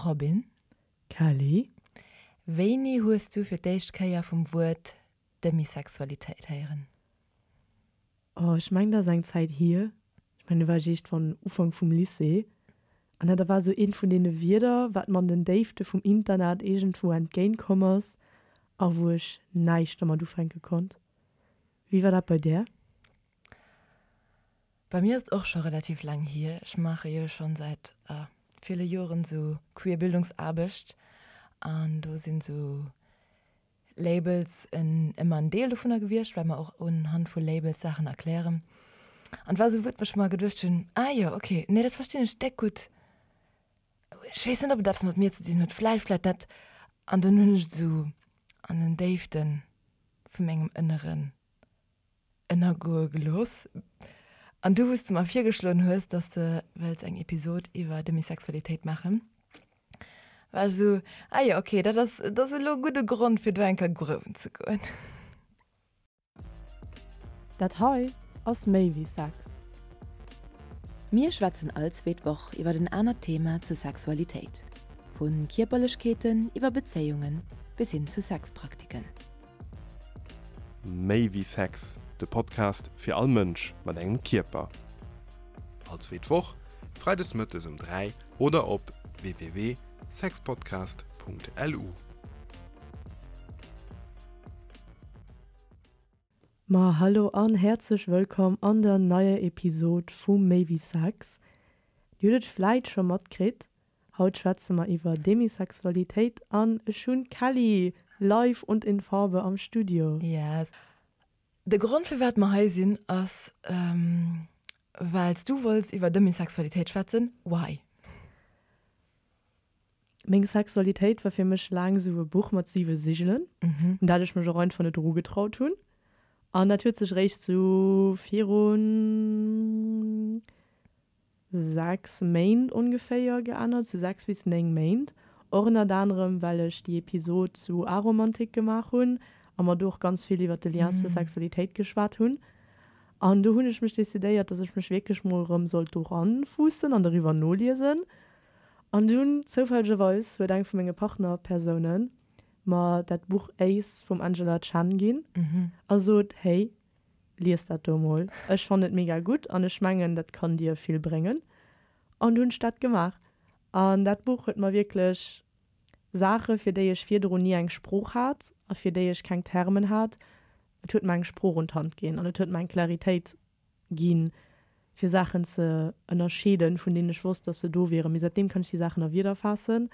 Robin. Kelly. Wéini hues du fir d'éischt Kéier vum Wuert Demisexualitéit héieren? Oh, ech mengen dat ass eng Zäit hier. Ech mengen do war ech iergendwann Ufank vum Lycée an dat war esou eent vun deene Wierder, wat mer an den Déifte vum Internet iergendwou entgéint komm ass a wou ech näischt dermat ufänke konnt. Wéi war dat bei där? Bei mir ass et och scho relativ laang hier. Ech maache jo schonn säit ville Joren esou queer Bildungsaarbecht an do sinn esou Labels en ëmmer en Deel dovunner gewiescht, well mer och unhand vu Labels Saachen erklären. An et war esou e Wuert, wou ech mer geduecht hunn, ah jo, okay, nee, dat verstinn ech déck gutt. Ech weess net, ob et eppes mat mir ze dinn huet, vläicht, vläicht net. An dunn hunn ech et esou an den Déifte vu mengem Ënneren ënnergoe gelooss. An du, wou s de mer virgeschloen hues, dass de wëlls eng Episod iwwer Demisexualitéit maachen, war ech esou, ah jo, okay, dat ass, dat ass elo e gudde Grond, fir do eng Kéier gruewen ze goen. Dat hei ass méi wéi Sex. Mir schwätzen all zweet Woch iwwer en anert Thema zur Sexualitéit, vu Kierperlechkeeten iwwer Bezéiungen bis hin zu Sexpraktiken. Méi wéi Sex, de Podcast fir all Mënsch mat engem Kierper. All zweet Woch, freides mëttes um 3 oder op www.sexpodcast.lu. Ma hallo an häerzlech wëllkomm an der neier Episod vu Méi wéi Sex. Dir hutt et vläit scho matkritt, Haut schwätze mer iwwer Demisexualitéit an ech hunn d'Kelly live und in Farbe am Studio. Yes. De Grond firwat mer hei sinn ass well s du wollts iwwer Demisexualitéit schwätzen. Why? Meng Sexualitéit war fir mech laang esou e Buch mat siwe Sigelen, un dat ech mech och einfach net erugetraut hunn. An dat huet sech eréischt sou virun 6 Méint ongeféier geännert, sou 6 bis 9 Méint. Och ënnert anerem well ech déi Episod zu Aromantik gemaach hunn a mer do och ganz vill iwwert de Lien zur Sexualitéit geschwat hunn. An do hunn ech mech decidéiert, dass ech mech wierklech mol erëm sollt do ranfuussen an doriwwer noliesen. An dunn, zoufällegerweis, huet eng vu menge Partnerpersounen mer dat Buch Ace vum Angela Chen ginn a sot, Hey, Lies dat do mol, ech fannen et mega gutt an ech mengen dat kann dir vill bréngen. An du hunn ech dat gemaach an dat Buch huet mer wierklech Saache fir déi ech virdrun ni eng Sprooch hat a fir déi ech keng Termen hat, et huet mer eng Sprooch un d'Hand ginn an et huet mer eng Claritéit ginn, fir Saachen ze ënnerscheeden, vun deenen ech wosst, dass se do wieren. Mee säitdeem kann ech déi Saachen a Wierder faassen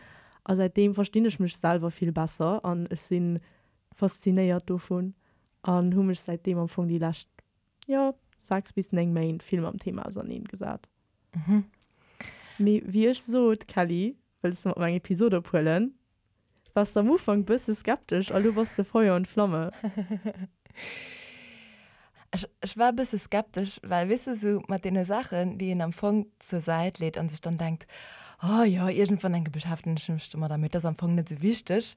a säitdeem verstinn ech mech selwer vill besser an ech si faszinéiert dovun An hu mech säitdeem am Fong déi lescht, jo, 6 bis 9 Méint vill mam Thema auserneen gesat. Mee wéi ech sot, Kelly, wëlls de mat mer eng Episod ophuelen? Wars de am Ufank bësse skeptesch a lo bass de Feuer und Flamme. Ech, ech war e bësse skeptesch, well, weess de, sou mat deene Saachen, déi een am Fong zur Säit leet an sech dann denkt, oh jo, iergendwann enke beschäftegen ech mech domadder, mee et ass am Fong net sou wichteg.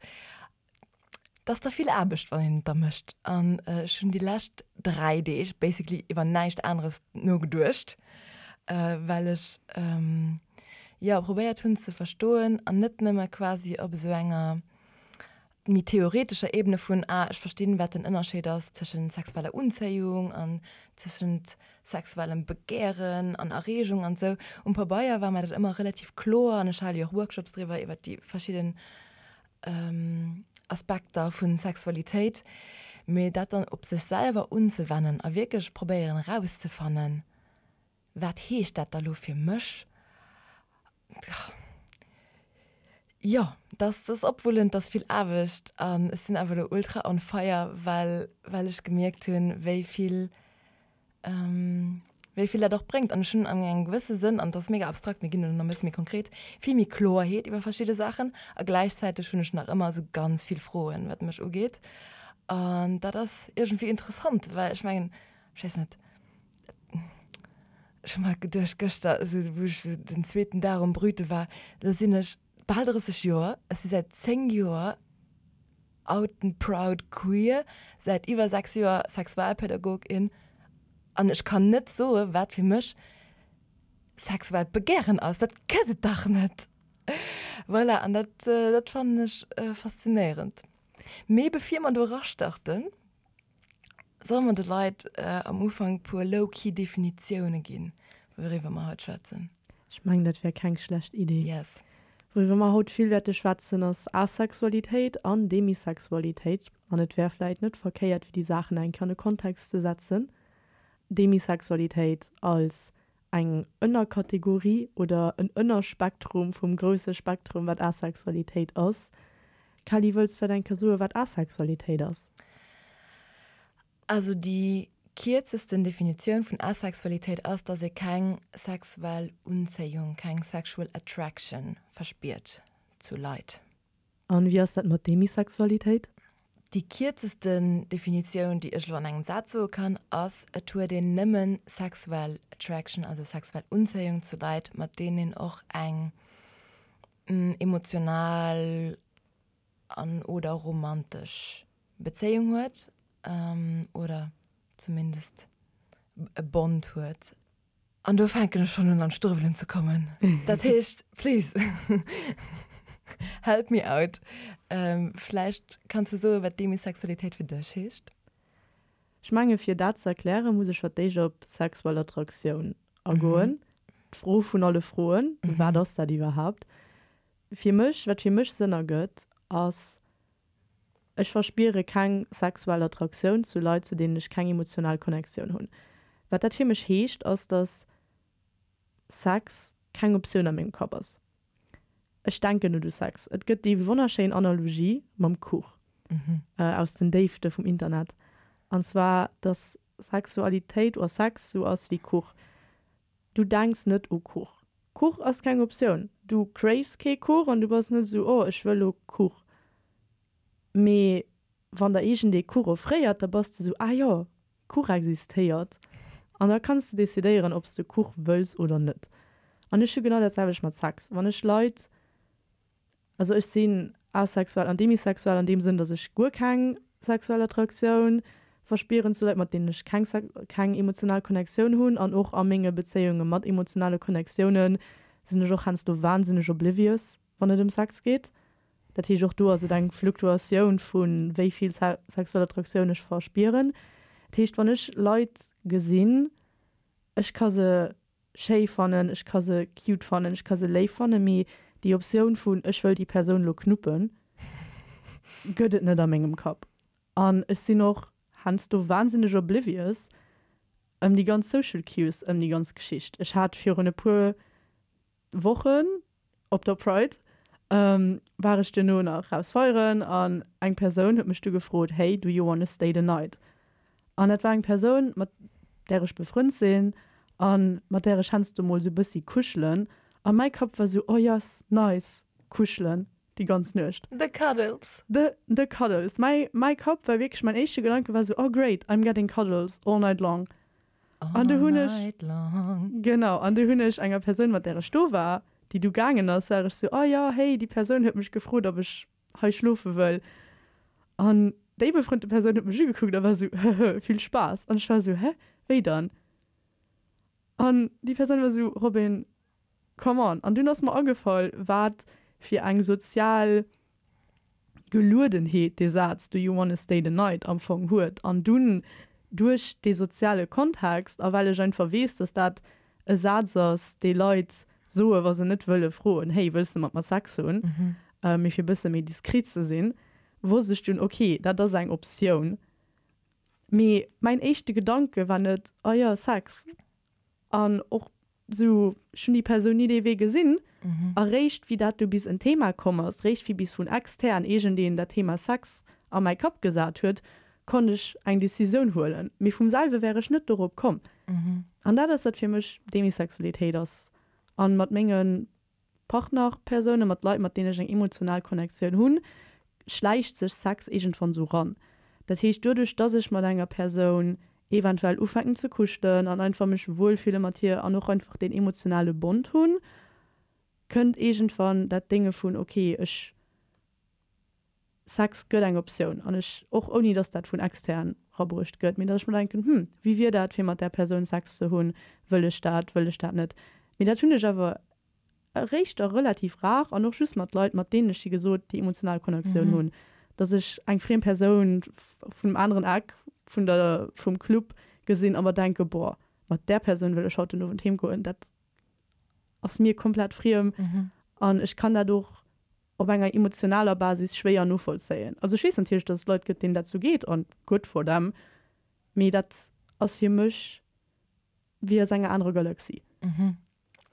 't ass da vill Aarbecht, wann een et da mécht. An ech hunn déi lescht 3 Deeg basically iwwer näischt aneres nogeduecht, well ech jo probéiert hunn ze verstoen an net nëmme quasi op esou enger méi theoretescher Ebene vun, ah ech verstinn, wat den Ënnerscheed ass tëschent sexueller Unzéiung an tëschent sexuellem Begären an Erreegung an esou. Um Pabeier war mer dat ëmmer relativ kloer an ech hale jo och Workshops driwwer iwwer déi verschidden Aspekter vun Sexualitéit, mee dat dann op sech selwer unzewennen a wierklech probéieren erauszefannen, wat heescht dat da lo fir mech, jo, dat ass opwullend, dat ass vill Aarbecht an ech sinn awer elo ultra on fire, well well ech gemierkt hunn, wéi vill wéi vill dat och bréngt. An ech hunn an engem gewësse Sënn, an dat ass mega abstrakt, mir ginn elo nach e bësse méi konkret, vill méi Kloerheet iwwer verschidde Saachen. A gläichzäiteg hunn ech nach ëmmer esou ganz vill Froen, wat mech ugeet. An dat ass iergendwéi interessant, well ech mengen, ech weess net, ech hu mer geduecht gëschter, esou wou ech esou den zweeten Dag um Brüte war, do sinn ech bal 30 Joer, ech si säit 10 Joer out and proud queer, säit iwwer 6 Joer Sexualpädagogin an ech kann net soe wat fir mech sexuellt Begären ass. Dat gëtt et dach net! Voilà, an dat, dat fannen ech faszinéierend. Mee bevir mer do erastarten, solle mer de Leit am Ufank e puer low-key Definitioune ginn, wouriwwer mer haut schwätzen. Ech mengen, dat wär keng schlecht Idee. Yes. Wouriwwer mer haut vill wäerte schwätzen, ass Asexualitéit an Demisexualitéit. An et wär vläit net verkéiert, fir déi Saachen eng Kéier an e Kontext ze setzen. Demisexualitéit als eng Ënnerkategorie oder en Ënnerspektrum vum grousse Spektrum, wat Asexualitéit ass. Kelly, wëlls vläit eng Kéier soen, wat Asexualitéit ass? Also déi kierzesten Definitioun vun Asexualitéit ass, dass ee keng sexuell Unzéiung, keng sexual attraction verspiert zu Leit. An wéi ass dat mat Demisexualitéit? Déi kierzesten Definitioun, déi ech elo an engem Saz soe kann, ass, Et huet een nëmmen sexuell Attraction, also sexuell Unzéiung zu Leit, mat deenen een och eng emotional an oder romantesch Bezéiung huet oder zumindest e Bond huet. An do fänken ech schonn un an d'Struewelen ze kommen. Dat heescht, please, help me out. Vläicht kanns du soen, wat Demisexualitéit fir dech heescht? Ech menge fir dat ze erklären, muss ech fir d'éischt op sexuell Attraktioun agoen. D'Fro vun alle Froen, Wat ass dat iwwerhaapt? Fir mech, wat fir mech Sënn ergëtt, ass, Ech verspiere keng sexuell Attraktioun zu Leit, zu deenen ech keng emotional Connectioun hunn. Wat dat fir mech heescht, ass, dass Sex keng Optioun a mengem Kapp ass. Ech denken net u Sex. Et gëtt déi wonnerschéin Analogie mam Kuch aus den Déifte vum Internet, an zwar, dass Sexualitéit oder Sex sou ass wéi Kuch. Du denks net u Kuch. Kuch ass keng Optioun. Du craves kee Kuch an du bass net esou, oh ech wëll lo Kuch. Mee wann der iergendee Kuch offréiert, da bass de esou, ah jo, Kuch existéiert. An da kanns de decidéieren, ob s de Kuch wëlls oder net. An ech hu genau dat selwecht mat Sex. Wann ech Leit Also ech sinn asexuell an demisexuell an deem Sënn, datt ech guer keng sexuell Attraktioun verspieren zu Leit, mat deenen ech keng keng emotional Connectioun hunn. An och a menge Bezéiunge mat emotionale Connectioune sinn ech och heiansdo wahnsinneg oblivious, wann et ëm Sex geet. Dat heescht, och do ass et eng Fluktuatioun vu wéi vill sexuell Attraktioun ech verspieren. Dat heescht, wann ech Leit gesinn, ech ka se schéi fannen, ech ka se cute fannen, ech ka se léif fannen, mee déi Optioun vun ech wëll déi Persoun lo knuppen, gëtt et net a mengem Kapp. An ech sinn och heiansdo wahnsinneg oblivious ëm déi ganz social cues ëm déi ganz Geschicht. Ech hat virun e puer Wochen op der Pride war ech duerno nach raus feieren an eng Persoun huet mech du gefrot, Hey, do you wanna stay the night? An dat war eng Persoun, mat där ech befrënnt sinn a mat där ech heiansdo mol sou bëssi kuschelen. A mäi Kapp war sou, Oh yes, nice, kuschelen déi ganz Nuecht. The cuddles. The, the cuddles. Mäi, mäi Kapp war wierklech, mäin éischte Gedanke war sou, Oh great, I'm getting cuddles all night long. An du hunn ech, genau, an du hunn ech enger Persoun, mat där ech do war, déi du gaangen ass, war ech sou, oh jo, hey, déi Persoun huet mech gefrot, ob ech hei schlofe wëll. An déi befrënnte Persoun huet mech ugekuckt a war sou, hëhë, vill Spaass. An ech war sou, hä, wéi dann? An déi Persoun war sou, Robin, come on. An dunn ass mer agefall, wat fir eng sozial Geluedenheet dee Saz Do you wanna stay the night am Fong huet. An dunn duerch dee soziale Kontext a well ech einfach weess, dass dat e Saz ass, dee Leit soe wa se net wëlle froen, Hey, wëlls de mat mer Sex hunn? mee fir e bësse méi diskret ze sinn, wosst ech dunn, ok, dat ass eng Optioun. Mee mäin éischte Gedanke war net, Oh jo, Sex. An och Sou, ech hunn déi Persoun ni dee Wee gesinn. A réischt wéi dat du bis en Thema komm ass, réischt wéi bis vun extern iergendeen dat Thema Sex a mäi Kapp gesat huet, konnt ech eng Decisioun huelen. Mee vum selwe wär ech net dorop komm. An dat ass, wat fir mech Demisexualitéit ass. A mat menge Partnerpersounen, mat Leit, mat deenen ech eng emotional Connectioun hunn, schläicht sech Sex iergendwann sou ran. Dat heescht, doduerch, dass ech mat enger Persoun eventuell ufänken ze kuschelen an einfach mech wuel fille mat hir an och einfach deen emotionale Bond hunn, kënnt iergendwann dat Dénge vun, ok, ech, Sex gëtt eng Optioun an ech, och ouni dass dat vun extern rabruecht gëtt, mee dass ech mer denken, hm, wéi wier dat fir mat där Persoun Sex ze hunn, wëll ech dat, wëll ech dat net? Mee dat hunn ech awer. Eréischt da relativ rar an och just mat Leit, mat deenen ech, wéi gesot, déi emotional Connectioun hunn, dass ech eng friem Persoun vun dem aneren Eck vun der, vum Club gesinn a mer denke, boah, mat där Persoun wëll ech haut den Owend heem goen. Dat ass mir komplett friem an ech kann dat och op enger emotionaler Basis schwéier novollzéien. Also ech weess natierlech, dass et Leit gëtt, deenen dat sou geet an good for them, mee dat ass fir mech wéi aus enger anerer Galaxie.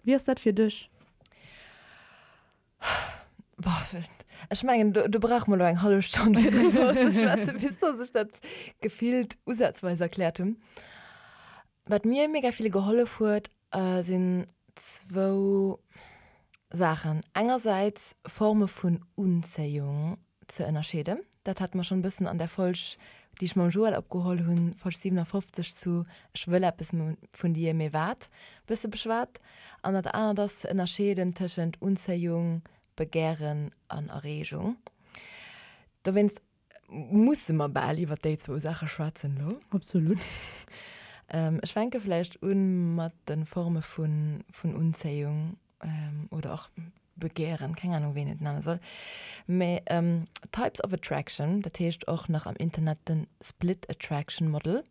Wéi ass dat fir dech? Boah, ech mengen, do, do brauche mer elo eng hallef Stonn fir driwwer ze schwätzen, bis dass ech dat gefillt usazweis erkläert hunn. Wat mir mega vill gehollef huet, sinn zwou Saachen. Engersäits Forme vun Unzéiung ze ënnerscheeden. Dat hate mer schonn e bëssen an där Folg, déi ech mam Joël opgeholl hunn, Folg 57 zu Ech wëll eppes vun dir, mee wat? bësse beschwat. An dat anert ass ze ënnerscheeden tëschent Unzéiung, Begären an Erreegung. Dowéinst musse mer bal iwwer déi zwou Saache schwätzen elo. Absolut. Ech fänke vläicht u mat de Forme vun Unzéiung. oder och Begehren, keng Ahnung wéi een et nenne soll, mä Types of Attraction, dat heescht och nach am Internet den Split Attraction Model,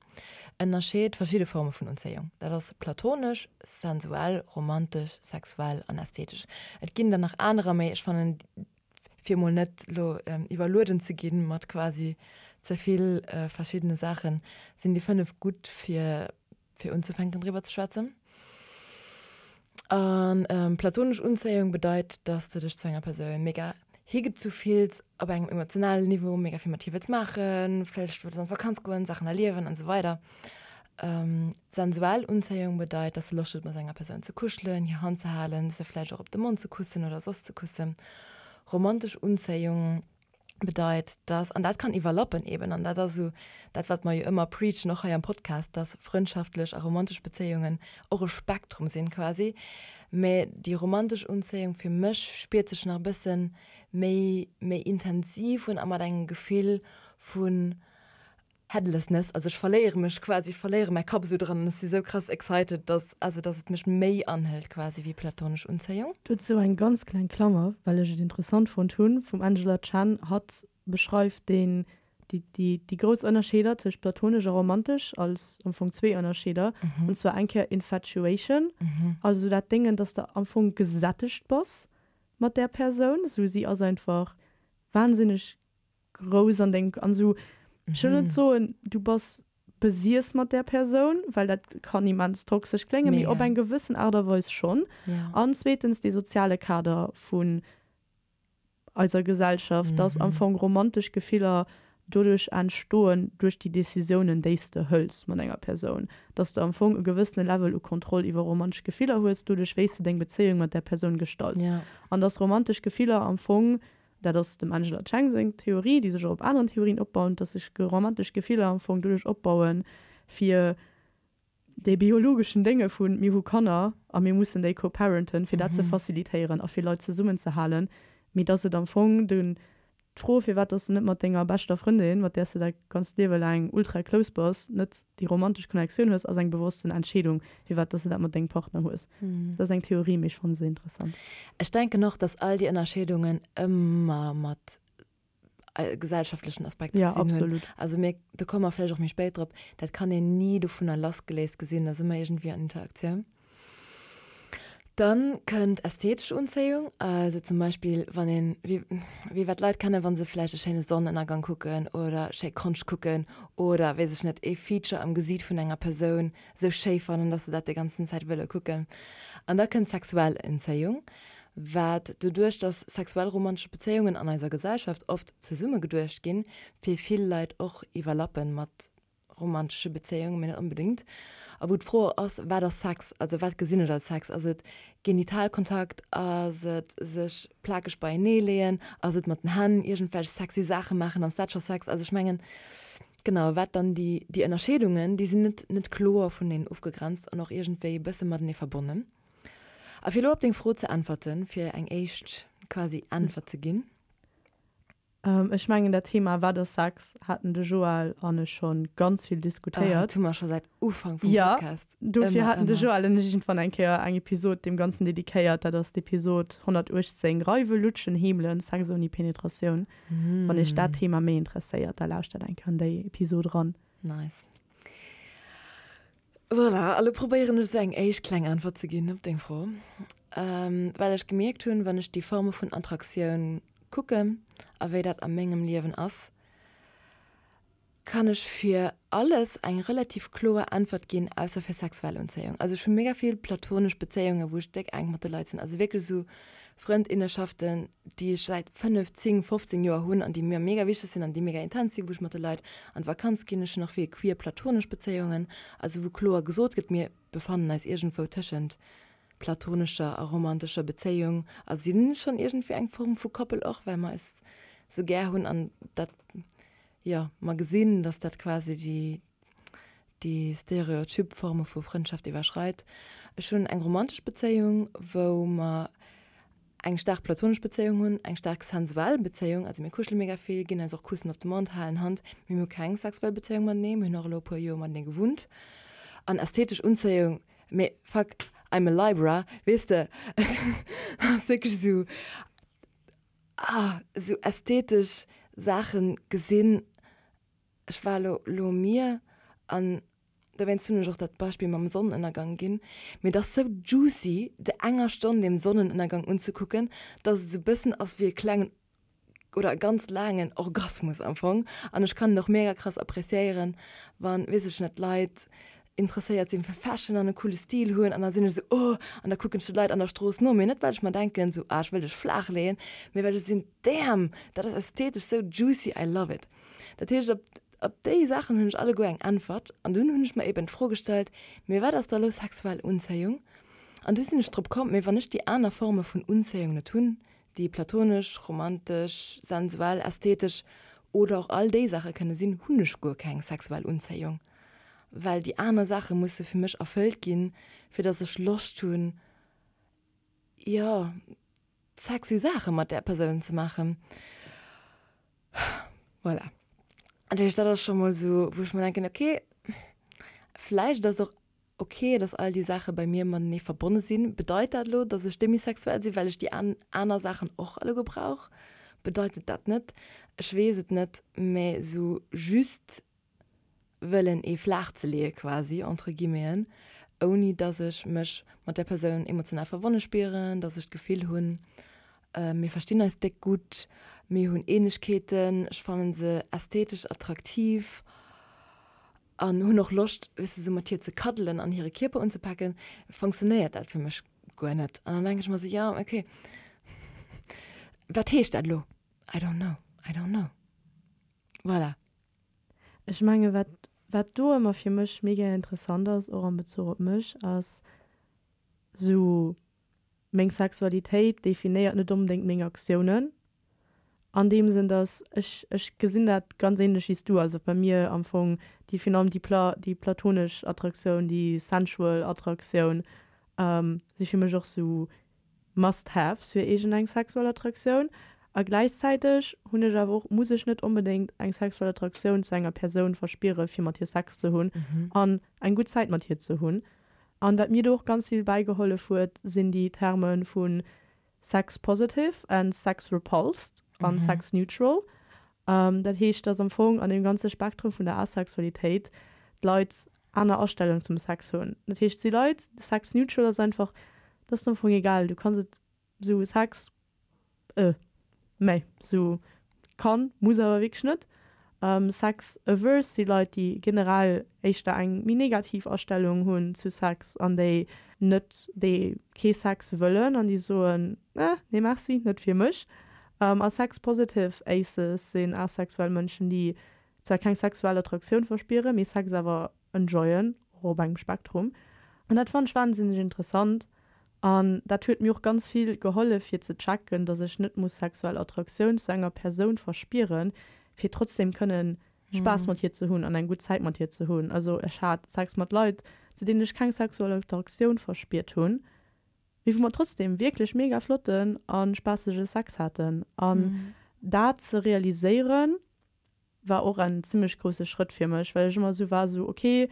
ënnerscheet verschidde Forme vun Unzéiung. Dat ass platonesch, sensuell, romantesch, sexuell an ästhetesch. Et ginn der nach anerer, mä ech fannen, fir mol net elo iwwerlueden ze ginn mat quasi ze vill verschiddene Saachen, sinn déi 5 gutt fir fir unzefänken driwwer ze schwätzen. An platonesch Unzéiung bedeit, dass du dech zu enger Persoun mega higezu fills op engem emotionalen Niveau, mega vill mat hir wëlls maachen, vläicht wëlls an d'Vakanz goen, Saachen erliewen an esou weider. Sensuell Unzéiung bedeit, dass du Loscht hues mat enger Persoun ze kuschelen, hir Hand ze halen, se vläicht och op de Mond ze kussen oder soss ze kussen. Romantesch Unzéiung bedeit, dass, an dat kann iwwerlappen eben, an dat ass esou dat, wat mer jo ëmmer preachen, och hei am Podcast, dass frëndschaftlech a romantesch Bezéiungen och e Spektrum sinn quasi, mä déi romantesch Unzéiung fir mech spiert sech nach e bësse méi, méi intensiv un a mat engem Gefill vun Headlessness, also ech verléiere mech quasi, ech verléiere mäi Kapp esou dran an ech si sou krass excited, dass, also dass et mech méi anhëlt quasi wéi platonesch Unzéiung. Dozou eng ganz kleng Klammer, well ech et interessant fonnt hunn, vum Angela Chen, hatt beschreift deen, déi, déi, déi grouss Ënnerscheeder tëscht platonesch a romantesch als am Fong zwee Ënnerscheeder, an zwar eng Kéier Infatuation, also dat Déngen, dass de am Fong gesättegt bass mat där Persoun, sou si ass einfach wahnsinneg grouss an deng an sou ech wëll net soen du bass besiess mat där Persoun, well dat kann immens toxesch kléngen, mee op eng gewëssen Aart a Weis schonn. An zweetens dee soziale Kader vun eiser Gesellschaft, dass am Fong romantesch Gefiller doduerch entstoen duerch déi Decisiounen déi s de hëls mat enger Persoun, dass de am Fong e gewëssene Level u Kontroll iwwer romantesch Gefiller hues doduerch wéi s de deng Bezéiung mat där Persoun gestalts an dass romantesch Gefiller am Fong Dat ass dem Angela Cheng seng Theorie, déi sech och op aneren Theorien opbaut, dass sech romantesch Gefiller am Fong doduerch opbauen, fir dee biologeschen Dénge vu mir hu Kanner a mir mussen déi co-parenten, fir dat ze facilitéieren a fir Leit zesummenzehalen, mee dass et am Fong de d'Fro, firwat dass de net mat denger beschter Frëndin, mat där s de däi ganzt Liewe laang ultra close bass, net déi romantesch Connectioun hues, ass eng bewossten Entscheedung, firwat dass de dat mat dengem Partner hues. Dat ass eng Theorie, mee ech fanne se interessant. Ech denken och, dass all déi Ënnerscheedungen ëmmer mat gesellschaftlechen Aspekter ze dinn hunn. Ja, absolut. Also mir, do komme mer vläicht och méi spéit drop, dat kann een ni dovunner lassgeléist gesinn, dat ass ëmmer iergendwéi an Interaktioun. Dann kënnt ästhetesch Unzéiung, also zum Beispill wann een, wéi wéi wat d'Leit kennen, wa se vläicht e schéine Sonnenënnergang kucken oder schéi Konscht kucken oder, weess ech net, ee Feature am Gesiit vun enger Persoun sou schéi fannen, dass se dat déi ganzen Zäit wëlle kucken. An da kënnt sexuell Unzéiung, wat doduerch, dass sexuell romantesch Bezéiungen an eiser Gesellschaft oft zesumme geduecht ginn, fir vill Leit och iwwerlappen mat romantesche Bezéiungen, mee net onbedéngt. A wou d'Fro ass, wat ass Sex? Also wat gesinn ech als Sex? Ass et Genitalkontakt? Ass et sech plakeg beienee leeën? Ass et mat den Hänn iergendwelch sexy Saache maachen? Ass dat scho Sex? Also ech mengen, genau, wat dann déi, déi Ënnerscheedungen, déi sinn net, net kloer vuneneen ofgegrenzt an och iergendwéi e bësse matenee verbonnen. A fir elo op deng Fro ze äntwerten, fir eng éischt quasi Äntwert ze ginn. Ech mengen dat Thema Wat ass Sex haten de Joël an ech schonn ganz vill diskutéiert. Dat hu mer scho säit Ufank vum Podcast. Jo, dofir haten de Joël an ech iergendwann eng Kéier eng Episod deem Ganzen dedikéiert. Dat ass d'Episod 118, Reiwen, Lutschen, Heemelen, Sex ouni Penetratioun. Wann iech dat Thema méi interesséiert, da lauschtert eng Kéier an déi Episod eran. Nice. Voilà, a lo probéieren ech esou eng éischt kleng Äntwert ze ginn op deng Fro. Well ech gemierkt hunn, wann ech déi Forme vun Attraktioun kucken a wéi dat a mengem Liewen ass, kann ech fir alles eng relativ kloer Äntwert ginn, ausser fir sexuell Unzéiung. Also ech hu mega vill platonesch Bezéiungen, wou ech déck enk mat de Leit sinn, also wierklech esou Frëndinnenschaften, déi ech säit 5, 10, 15 Joer hunn an déi mir mega wichteg sinn an déi mega intens sinn, wou ech mat de Leit an d'Vakanz ginn. Ech hunn och vill queer platonesch Bezéiungen, also wou kloer gesot gëtt, mir befannen eis iergendwou tëschent platonescher a romantescher Bezéiung a si schonn iergendwéi eng Form vu Koppel och, well mer eis sou gär hunn an dat, jo, mer gesinn, dass dat quasi déi, déi stereotyp Forme vu Frëndschaft iwwerschreit. Ech hunn eng romantesch Bezéiung, wou mer eng staark platonesch Bezéiung hunn, eng staark sensuell Bezéiung, also mir kuschele mega vill, ginn eis och Kussen op de Mond, halen Hand, mee mir hu keng sexuell Bezéiung matenee, mir hunn och elo e puer Joer matenee gewunnt. An ästhetesch Unzéiung, mee fuck, I'm a Libra, weess de, et ass wierklech esou, ah, esou ästhetesch Saache gesinn, Ech war elo lo um Mier an dowéinst hunn ech och dat Beispill mam Sonnenënnergang ginn. Mee et ass sou juicy de enger Stonn dem Sonnenënnergang unzekucken, dass et sou bëssen ass wéi e klengen oder e ganz laangen Orgasmus am Fong. An ech kann et och mega krass appreciéieren, wann, weess ech net, Leit interesséiert sinn fir Fashion an e coole Stil hunn an da sinn ech sou oh an da kucken ech de Leit an der Strooss no, mee net well ech mer denken sou ah ech wëll dech flaach leeën, mee well ech sinn damn dat ass ästhetesch sou juicy, I love it. Dat heescht op op déi Saachen hunn ech alleguer eng Äntwert an dunn hunn ech mer eben d'Fro gestallt, mee wat ass da lo sexuell Unzéiung? An du sinn ech drop komm, mee wann ech déi aner Forme vun Unzéiung net hunn, déi platonesch, romantesch, sensuell, ästhetesch oder och all déi Saache kënne sinn, hunn ech guer keng sexuell Unzéiung, well déi aner Saache musse fir mech erfëllt ginn, fir datt ech Loscht hunn, jo, sexy Saache mat där Persoun ze maachen. Voilà. Dat heescht, dat ass scho mol esou, wou ech mer denken, okay, vläicht ass och ok, dass all déi Saache bei mir matenee verbonne sinn. Bedeit dat elo, dass ech demisexuell sinn, well ech déi aner Saachen och alleguer brauch? Bedeit et dat net? Ech weess et net, mä esou just wëllen ee flaach ze leeë quasi, entre guillemeten, ouni dass ech mech mat där Persoun emotional verbonne spieren, dass ech d'Gefill hunn, mir verstinn eis déck gutt, mir hunn Ähnlechkeeten, ech fannen se ästhetesch attraktiv an hunn och Loscht, weess de, sou mat hir ze kaddelen an hire Kierper unzepaken, funktionéiert dat fir mech guer net. An dann denke ech mer sou, jo, okay, wat heescht dat elo? I don't know, I don't know. Voilà. Ech menge wat wat do ëmmer fir mech mega interessant ass, och am Bezuch op mech, ass sou meng Sexualitéit definéiert net onbedéngt meng Aktiounen an deem Sënn, dass ech ech gesinn dat ganz ähnlech wéi s du, also bei mir am Fong déi virun allem déi pla déi platonesch Attraktioun, déi sensual Attraktioun si fir mech och sou Must-haves fir iergend eng sexuell Attraktioun a gläichzäiteg hunn ech awer och, muss ech net onbedéngt eng sexuell Attraktioun zu enger Persoun verspiere fir mat hir Sex ze hunn an eng gutt Zäit mat hir ze hunn. An wat mir do och ganz vill bäigehollef huet, sinn déi Terme vu sex positive and sex repulsed an sex neutral. Dat heescht, dass am Fong an deem ganze Spektrum vun der Asexualitéit d'Leit aner Astellung zum Sex hunn. Dat heescht, et si Leit, sex neutral ass einfach, dat ass am Fong egal, du kanns et sou Sex, äh, mä sou kann, muss awer wierklech net. Sex averse si Leit, déi generell éischter eng méi negativ Astellung hunn zu Sex an déi net, déi kee Sex wëllen an déi soen, eh, nee merci, net fir mech. A sex positive Aces sinn asexuell Mënschen, déi zwar keng sexuell Attraktioun verspieren, mee Sex awer enjoyen, och op engem Spektrum. An dat fannen ech wahnsinneg interessant an dat huet mir och ganz vill gehollef fir ze checken, dass ech net muss sexuell Attraktioun zu enger Persoun verspieren, fir trotzdem kënnen Spaass mat hir ze hunn an eng gutt Zäit mat hir ze hunn. Also ech hat Sex mat Leit, zu deenen ech keng sexuell Attraktioun verspiert hunn, mee wou mer trotzdem wierklech mega flotten a spaassege Sex haten. An. Dat ze realiséieren war och en zimmlech grousse Schrëtt fir mech, well ech ëmmer esou war, esou ok,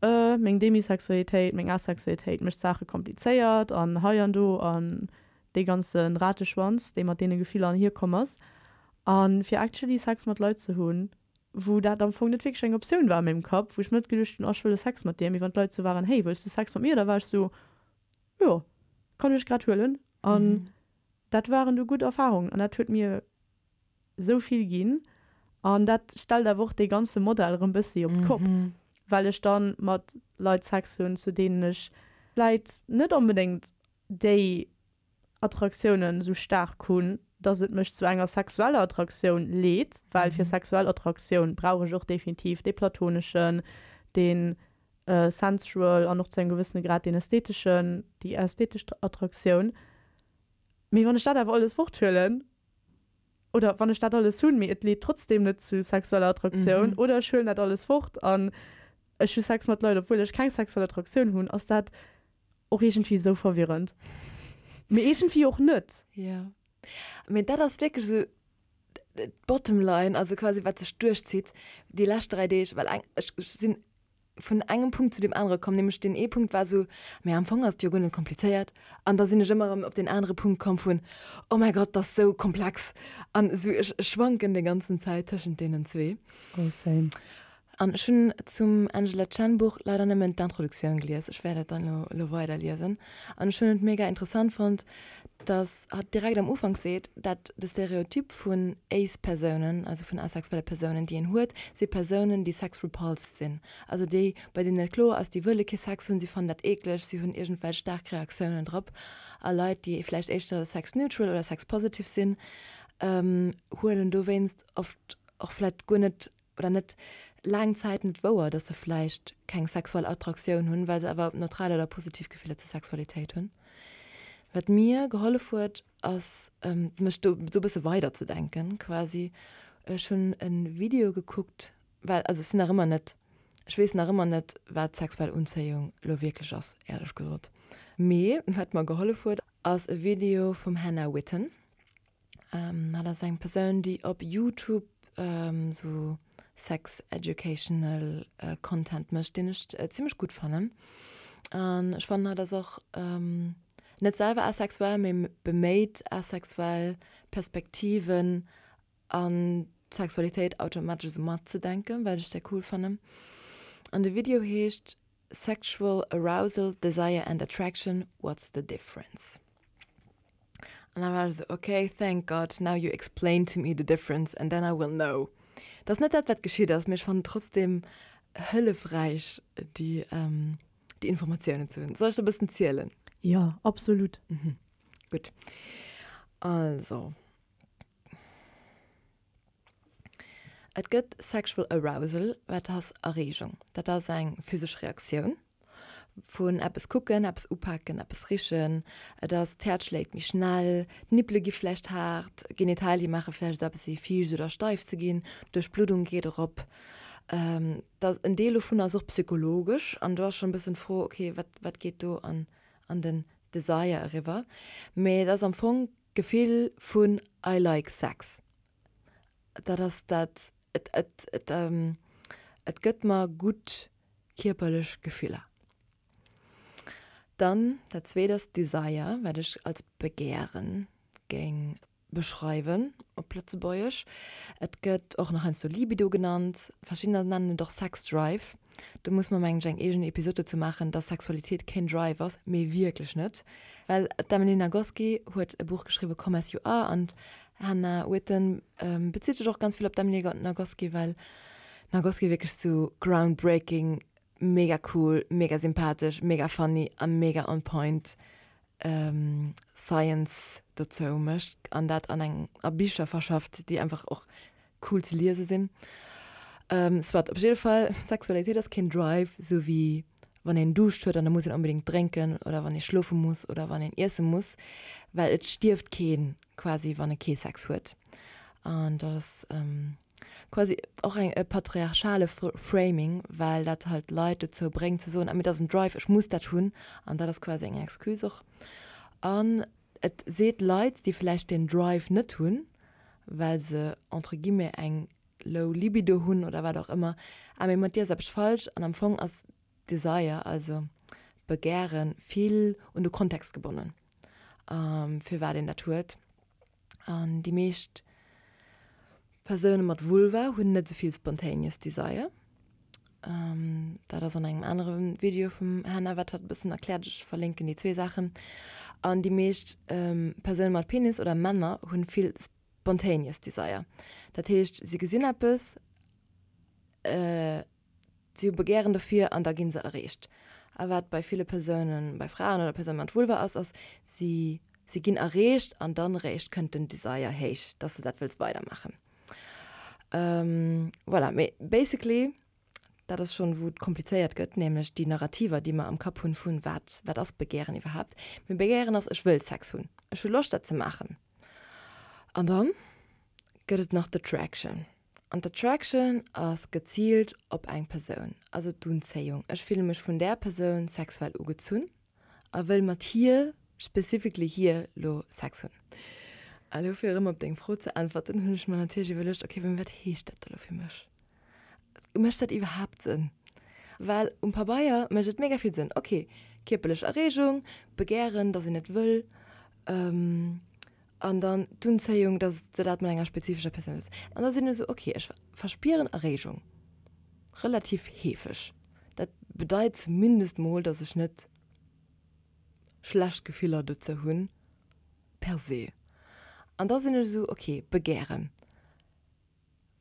meng Demisexualitéit, meng Asexualitéit mécht d'Saache komplizéiert an hei an do an dee ganze Rateschwanz, dee mat deene Gefiller anhier komm ass. A fir actually Sex mat Leit ze hunn, wou dat am Fong net wierklech eng Optioun war a mengem Kapp, wou ech mir net geduecht hunn, oh ech wëll e Sex mat dir, mee wann d'Leit esou waren, hey wëlls du Sex mat mir, da war ech esou, jo kann ech grad huelen. An dat waren du gutt Erfarungen an dat huet mir esou vill ginn an dat stellt awer och dee ganze Modell erëm bëssi op d'Kopp, well ech dann mat Leit Sex hunn, zu deenen ech vläit net onbedéngt déi Attraktiounen esou staark hunn, dass et mech zu enger sexueller Attraktioun leet, well fir sexuell Attraktioun brauch ech och definitiv dee platoneschen, dee sensual an och zu engem gewëssene Grad deen ästheteschen, déi ästhetesch Attraktioun. Mee wann ech dat awer alles forthuelen, oder wann ech dat alles hunn, mee et leet trotzdem net zu sexueller Attraktioun, oder ech huelen dat alles fort an ech hu Sex mat Leit, obwuel ech keng sexuell Attraktioun hunn, ass dat och iergendwéi esou verwirrend. Mee iergendwéi och net. Jo. Mee dat ass wierklech esou d'Bottom line, also quasi wat sech duerchzitt déi lescht 3 Deeg, well eng, ech sinn vun engem Punkt zu deem anere komm, nämlech deen ee Punkt war esou, mä am Fong ass et jo guer net komplizéiert. An da sinn ech ëmmer erëm op deen anere Punkt komm vun, oh mäi Gott, dat ass esou komplex. An esou, ech schwanken déi ganzen Zäit tëschent deenen zwee. Oh, same. An ech hunn zum Angela Chen Buch leider nëmmen d'Introduktioun gelies, ech wäert et dann elo elo weider liesen. An ech hunn et mega interessant fonnt, dass hatt direkt am Ufank seet, dat de Stereotyp vun Ace-Persounen, also vun asexuelle Persounen, déi een huet, si Persounen, déi sex-repulsed sinn. Also déi, bei deenen et kloer ass, déi wëlle kee Sex hunn, si fannen dat eekleg, si hunn iergendwelch staark Reaktiounen drop. A Leit, déi vläicht éischter sex-neutral oder sex-positive sinn, huelen dowéinst oft och vläicht guer net oder net laang Zäit net wouer, dass se vläicht keng sexuell Attraktioun hunn, well se awer neutral oder positiv Gefiller zur Sexualitéit hunn. Wat mir gehollef huet, ass mech do esou e bësse weiderzedenken quasi. Ech hunn e Video gekuckt, well also ech sinn nach ëmmer net, ech weess nach ëmmer net, wat sexuell Unzéiung elo wierklech ass, éierlech gesot. Mee wat mer gehollef huet, ass e Video vum Hannah Witton. Hatt ass eng Persoun, déi op YouTube sou sex educational Content mécht, deen ech zimmlech gutt fannen. An ech fannen, hatt ass och net selwer asexuell, mee beméit asexuell Perspektiven an d'Sexualitéit automatesch esou matzedenken, wat ech sehr cool fannen. An de Video heescht Sexual Arousal, Desire and Attraction, What's the Difference? An da war ech esou, ok, thank God, now you explain to me the difference and then I will know. Dat ass net dat, wat geschitt ass, mee ech fannen et trotzdem hëllefräich, déi, déi Informatiounen ze hunn. Soll ech der e bëssen zielen? Jo, absolut. Mhm. Gutt. Also. Et gëtt Sexual Arousal, wat ass Erreegung. Dat ass eng physesch Reaktioun vun eppes kucken, eppes upaken, eppes richen. Et ass, d'Häerz schléit méi schnell, d'Nippele gi vläicht haart, d'Genitalie maache vläicht esou eppes wéi fiicht oder steif ze ginn, d'Duerchbluddung geet erop. Dat en Deel dovun ass och psychologesch an do ass schonn e bëssen d'Fro, okay, wat wat geet do an an den Desire eriwwer? Mee et ass am Fong D'Gefill vun I like sex, dat ass dat, et, et, et, et gëtt mer gutt kierperlech Gefiller. Dann dat zweet ass Desire, wat ech als Begären géing beschreiwen op Lëtzebuergesch. Et gëtt och nach heiansdo Libido genannt, verschiddener nennen et och Sex Drive. Do muss mer mengen ech eng eegen Episod dozou maachen, dass Sexualitéit keen Drive ass, mee wierklech net. Well d'Emily Nagoski huet e Buch geschriwwen, Come As You Are, an d'Hannah Witton bezitt sech och ganz vill op d'Emily Nagoski, well d'Nagoski wierklech sou groundbreaking, mega cool, mega sympathesch, mega funny a mega on point Science dozou mécht an dat an eng a Bicher verschafft, déi einfach och cool ze liese sinn. Soit, op jidde Fall, Sexualitéit ass keen Drive, sou wéi wann een Duuscht huet an da muss een onbedéngt drénken oder wann ee schlofe muss oder wann een iesse muss, well et stierft keen quasi, wann e kee Sex huet. An dat ass quasi och eng e patriarchale Framing, well dat halt Leit dozou bréngt ze soen, ah mee dat ass en Drive, ech muss dat hunn. An dat ass quasi eng Excuse och. An et seet Leit, déi vläicht deen Drive net hunn, well se entre guillemets eng low libido hunn oder wat och ëmmer, ah mee mat dir ass eppes falsch an am Fong ass Desire, also Begären, vill un de Kontext gebonnen, firwat een dat huet. An déi meescht Persoune mat Vulva hunn net esou vill spontaneous desire. Dat ass an engem anere Video vum Hannah, wat hatt e bëssen erkläert. Ech verlinken déi zwee Saachen. An déi meescht Persoune mat Penis oder Männer hunn vill spontaneous desire. Dat heescht, si gesinn eppes, Si hu Begären dofir an da gi se erreecht. A wat bei ville Persounen, bei Fraen oder Persoune mat Vulva ass, ass, si, si ginn erreecht an dann eréischt kënnt den Desire héich, dass se dat wëlls weidermaachen. Voilà, mee basically, dat ass schonn, wou et komplizéiert gëtt, nämlech déi Narrativer, déi mer am Kapp hunn, vun wat, wat ass Begären iwwerhaapt? Mee Begären ass, ech wëll Sex hunn, ech hu Loscht dat ze maachen. An dann gëtt et nach d'Attraction. An d'Attraction ass geziilt op eng Persoun, also d'Unzéiung. Ech fille mech vun där Persoun sexuell ugezunn a wëll mat hir, specifically hir, lo Sex hunn. A lo fir erëm op deng Fro ze äntwerten, hunn ech mer natierlech iwwerluecht, ok, mä wat heescht dat da lo fir mech? Mécht dat iwwerhaapt Sënn? Well um Pabeier mécht et mega vill Sënn, ok, kierperlech Erreegung, Begären, datt een et wëll, An dann d'Unzéiung, dass de dat mat enger spezifescher Persoun wëlls. An da sinn ech esou, ok, ech verspieren Erreegung relativ heefeg. Dat bedeit zumindest mol, dass ech net schlecht Gefiller dozou hunn per se. An da sinn ech esou, ok, Begären.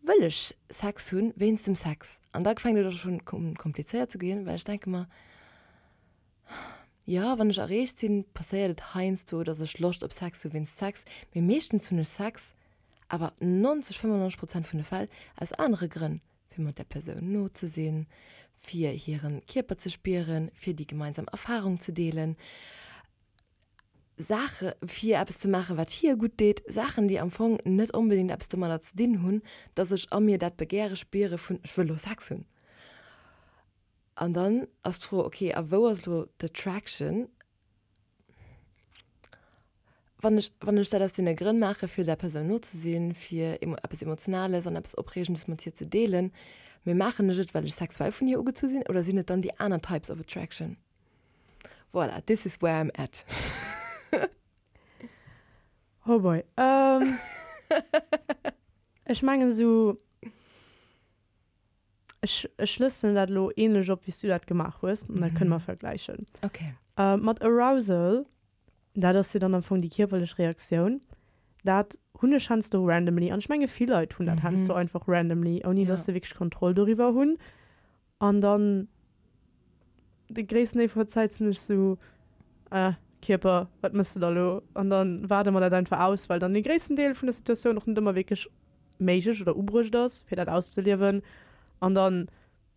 Wëll ech Sex hunn wéinst dem Sex? An da fänkt et och schonn un komplizéiert ze ginn, well ech denke mer, jo, wann ech erreegt sinn, passéiert et heiansdo, datt ech Loscht op Sex hu wéinst Sex, mee meeschtens hunn ech Sex awer 90, 95 Prozent vun de Fäll aus anere Grënn, fir mat där Persoun no ze sinn, fir hiren Kierper ze spieren, fir déi gemeinsam Erfarung ze deelen. Saache fir eppes ze maachen, wat hir gutt deet, Saachen, déi am Fong net onbedéngt eppes domadder ze dinn hunn, dass ech a mir dat Begäre spiere vun ech wëll elo Sex hunn. An dann ass d'Fro, okay, a wou ass elo d'Attraction, wann ech, wann ech dat aus deene Grënn maache fir der Persoun no ze sinn, fir eppes Emotionales an eppes Opreegendes mat hir ze deelen, mee maachen ech et, well ech sexuell vun hir ugezu sinn oder sinn et dann déi aner Types of Attraction? Voilà, this is where I'm at. Oh boy. Ähm, ech mengen esou, ech, ech schlësselen dat elo ähnlech op, wéi s du dat gemaach hues, an da kënne mer vergläichen. Okay. Äh, mat Arousal, dat ass jo dann am Fong déi kierperlech Reaktioun, dat hunn ech heiansdo randomly, an ech menge vill Leit hunn dat heiansdo einfach randomly, ouni dass se wierklech Kontroll doriwwer hunn. An dann de gréissten Deel vun der Zäit sinn ech sou, ah, Kierper, wat mëss de da lo? An dann waarde mer dat einfach aus, well dann dee gréissten Deel vun der Situatioun och net ëmmer wierklech méiglech oder ubruecht ass, fir dat auszeliewen. An dann,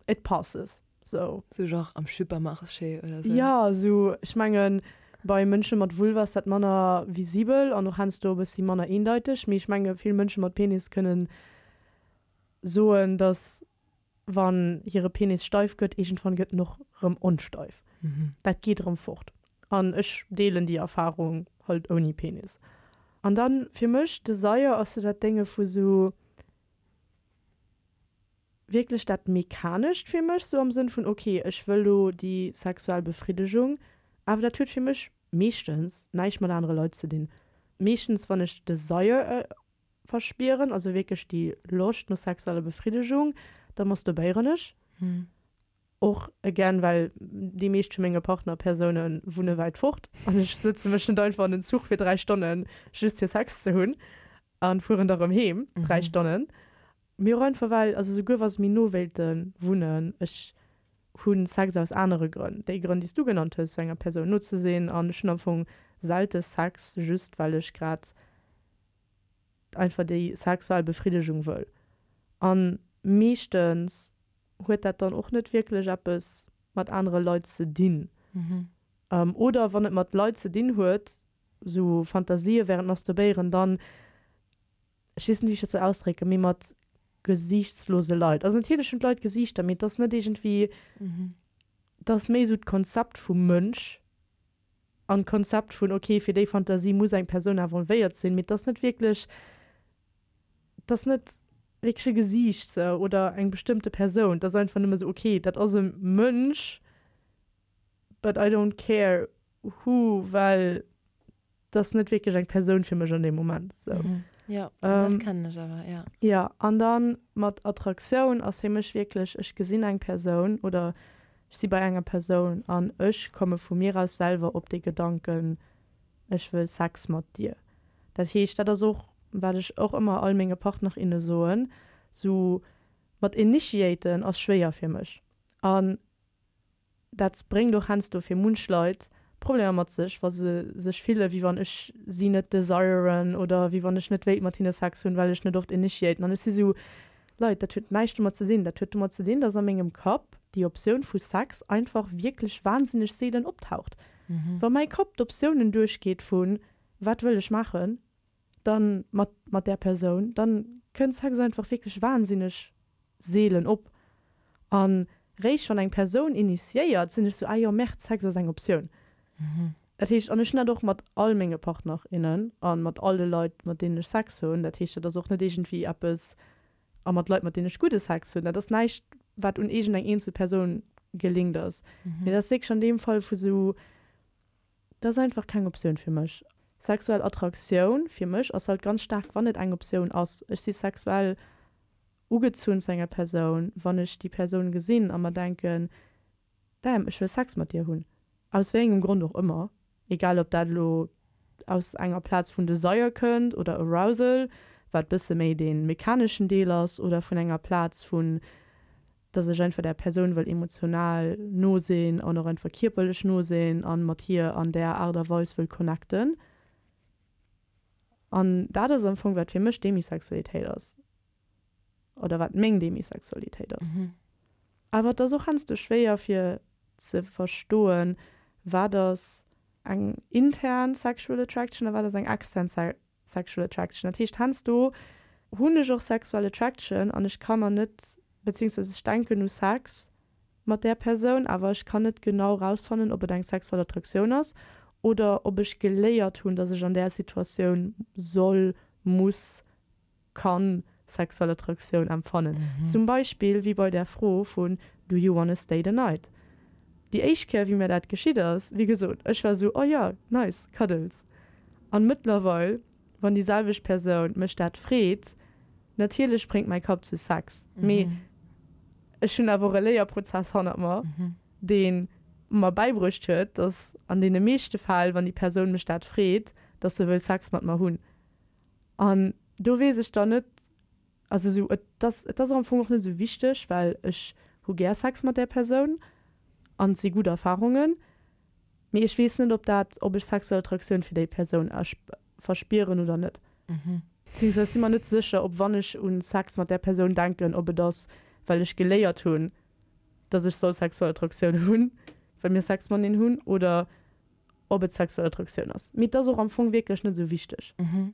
it passes, sou. Sou genre am Supermarché oder sou? Jo, sou, ech mengen, bei Mënsche mat Vulva ass dat manner visibel an och heiansdo e bëssi manner eendeiteg, mee ech menge vill Mënsche mat Penis kënnen soen, dass wann hire Penis steif gëtt, iergendwann gëtt en och rëm onsteif. Dat geet erëm fort. An ech deelen déi Erfarung halt ouni Penis. An dann fir mech, Desire ass sou dat Dénge vu sou wierklech dat Mechanescht fir mech, sou am Sënn vun ok, ech wëll lo déi sexuell Befriddegung, awer dat huet fir mech meeschtens näischt mat anere Leit ze dinn. Meeschtens wann ech Desire verspieren, also wierklech déi Loscht no sexueller Befriddegung, da masturbéieren ech. Och again, well déi meescht vu menge Partnerpersoune wunne wäit fort an ech sëtze mech net einfach an den Zuch fir 3 Stonnen just fir Sex ze hunn a fueren da rëm heem 3 Stonnen. Mee och einfach well, also souguer wa se méi no wéilte wunnen, ech hu Sex aus anere Grënn, déi Grënn déi s du genannt hues, fir enger Persoun no ze sinn an ech hunn am Fong selte Sex just well ech grad einfach déi sexuell Befriddegung wëll. An meeschtens huet dat dann och net wierklech eppes mat anere Leit ze dinn. Oder wann et mat Leit ze dinn huet, sou Fantasië während Masturbéieren, dann, ech weess net wéi ech dat soll ausdrécken, mee mat gesiichtslose Leit. Also natierlech hunn d'Leit Gesiichter, mee et ass net iergendwéi, et ass méi sou d'Konzept vum Mënsch an d'Konzept vun, ok, fir déi Fantasie muss eng Persoun involvéiert sinn, mee et ass net wierklech. Et ass net wierklech e Gesiicht sou oder eng bestëmmte Persoun. Et ass einfach nëmme sou, okay, dat ass e Mënsch, but I don't care who, well et ass net wierklech eng Persoun fir mech an deem Moment sou. Jo, dat kennen ech awer, jo. Jo, an dann mat Attraktioun ass fir mech wierklech, ech gesinn eng Persoun oder ech si bei enger Persoun an ech komme vu mir aus selwer op dee Gedanken, ech wëll Sex mat dir. Dat heescht, dat ass och, wat ech och ëmmer all menge Partner, inne soen, sou mat initiaten ass schwéier fir mech. An dat bréngt och heiansdo fir munch Leit Problemer mat sech, wa se sech fille wéi wann ech si net desiren oder wéi wann ech net wéilt mat hinne Sex hunn, well ech net oft initiaten. An ech si sou, Leit, dat huet näischt domat ze dinn. Dat huet domat ze dinn, dass a mengem Kapp déi Optioun vu Sex einfach wierklech wahnsinneg seelen optaucht. Wa mäi Kapp d'Optiounen duerchgeet vu wat wëll ech maachen, dann mat mat där Persoun, dann kënnt Sex einfach wierklech wahnsinneg seelen op. An réischt wann eng Persoun initiéiert, sinn ech sou, ah jo, merde, Sex ass eng Optioun. Dat heescht, an ech hunn dat och mat all menge Partner, innen a mat all de Leit, mat deenen ech Sex hunn. Dat heescht, dat ass och net iergendwéi eppes, a mat Leit, mat deenen ech gudde Sex hunn, dat ass näischt, wat un iergendeng eenzel Persoun gelinkt ass. Mee dat ass wierklech an deem Fall vu sou, dat ass einfach keng Optioun fir mech. Sexuell Attraktioun fir mech ass halt ganz staark, wann et eng Optioun ass. Ech si sexuell ugezunn zu enger Persoun, wann ech déi Persoun gesinn a mer denken, Damn, ech wëll Sex mat dir hunn. Aus wéi engem Grond och ëmmer, egal ob dat elo aus enger Plaz vun Desire kënnt oder Arousal, wat bësse méi dee mechaneschen Deel ass, oder vun enger Plaz vun, dass ech einfach där Persoun wëll emotional no sinn an och einfach kierperlech no sinn a mat hir an där Aart a Weis wëll connecten. An dat ass am Fong, wat fir mech Demisexualitéit ass. Oder wat meng Demisexualitéit ass. Awer et ass och heiansdo schwéier fir ze verstoen, wat ass eng intern sexual attraction a wat ass eng extern sexual attraction. Dat heescht, heiansdo hunn ech och sexual attraction an ech ka mer net, beziehungsweise ech denken u Sex mat där Persoun, awer ech kann net genau rausfannen, ob et eng sexuell Attraktioun ass oder ob ech geléiert hunn, dass ech an där Situatioun soll, muss, kann sexuell Attraktioun empfannen. Zum Beispill wéi bei där Fro vun Do you wanna stay the night? Déi éischt Kéier wéi mir dat geschitt ass, wéi gesot, ech war sou, oh jo, nice, Cuddles. An mëttlerweil, wann déi selwecht Persoun mech dat freet, natierlech spréngt mäi Kapp zu Sex, mee ech hunn awer och e Léierprozess hannert mer, dee mer bäibruecht huet, dass an deene meeschte Fäll, wann déi Persoun mech dat freet, dass se wëll Sex mat mer hunn. An do weess ech dann net, also esou, et ass, et ass am Fong och net esou wichteg, well ech hu gär Sex mat där Persoun an et si gutt Erfarungen, mee ech weess net, ob dat, ob ech sexuell Attraktioun fir déi Persoun verspieren oder net. Beziehungsweise si mer net sécher, ob wann ech un Sex mat där Persoun denken, ob et ass, well ech geléiert hunn, dass ech soll sexuell Attraktioun hunn, well mir Sex mateneen hunn, oder ob et sexuell Attraktioun ass. Mee et ass och am Fong wierklech net esou wichteg. Mhm.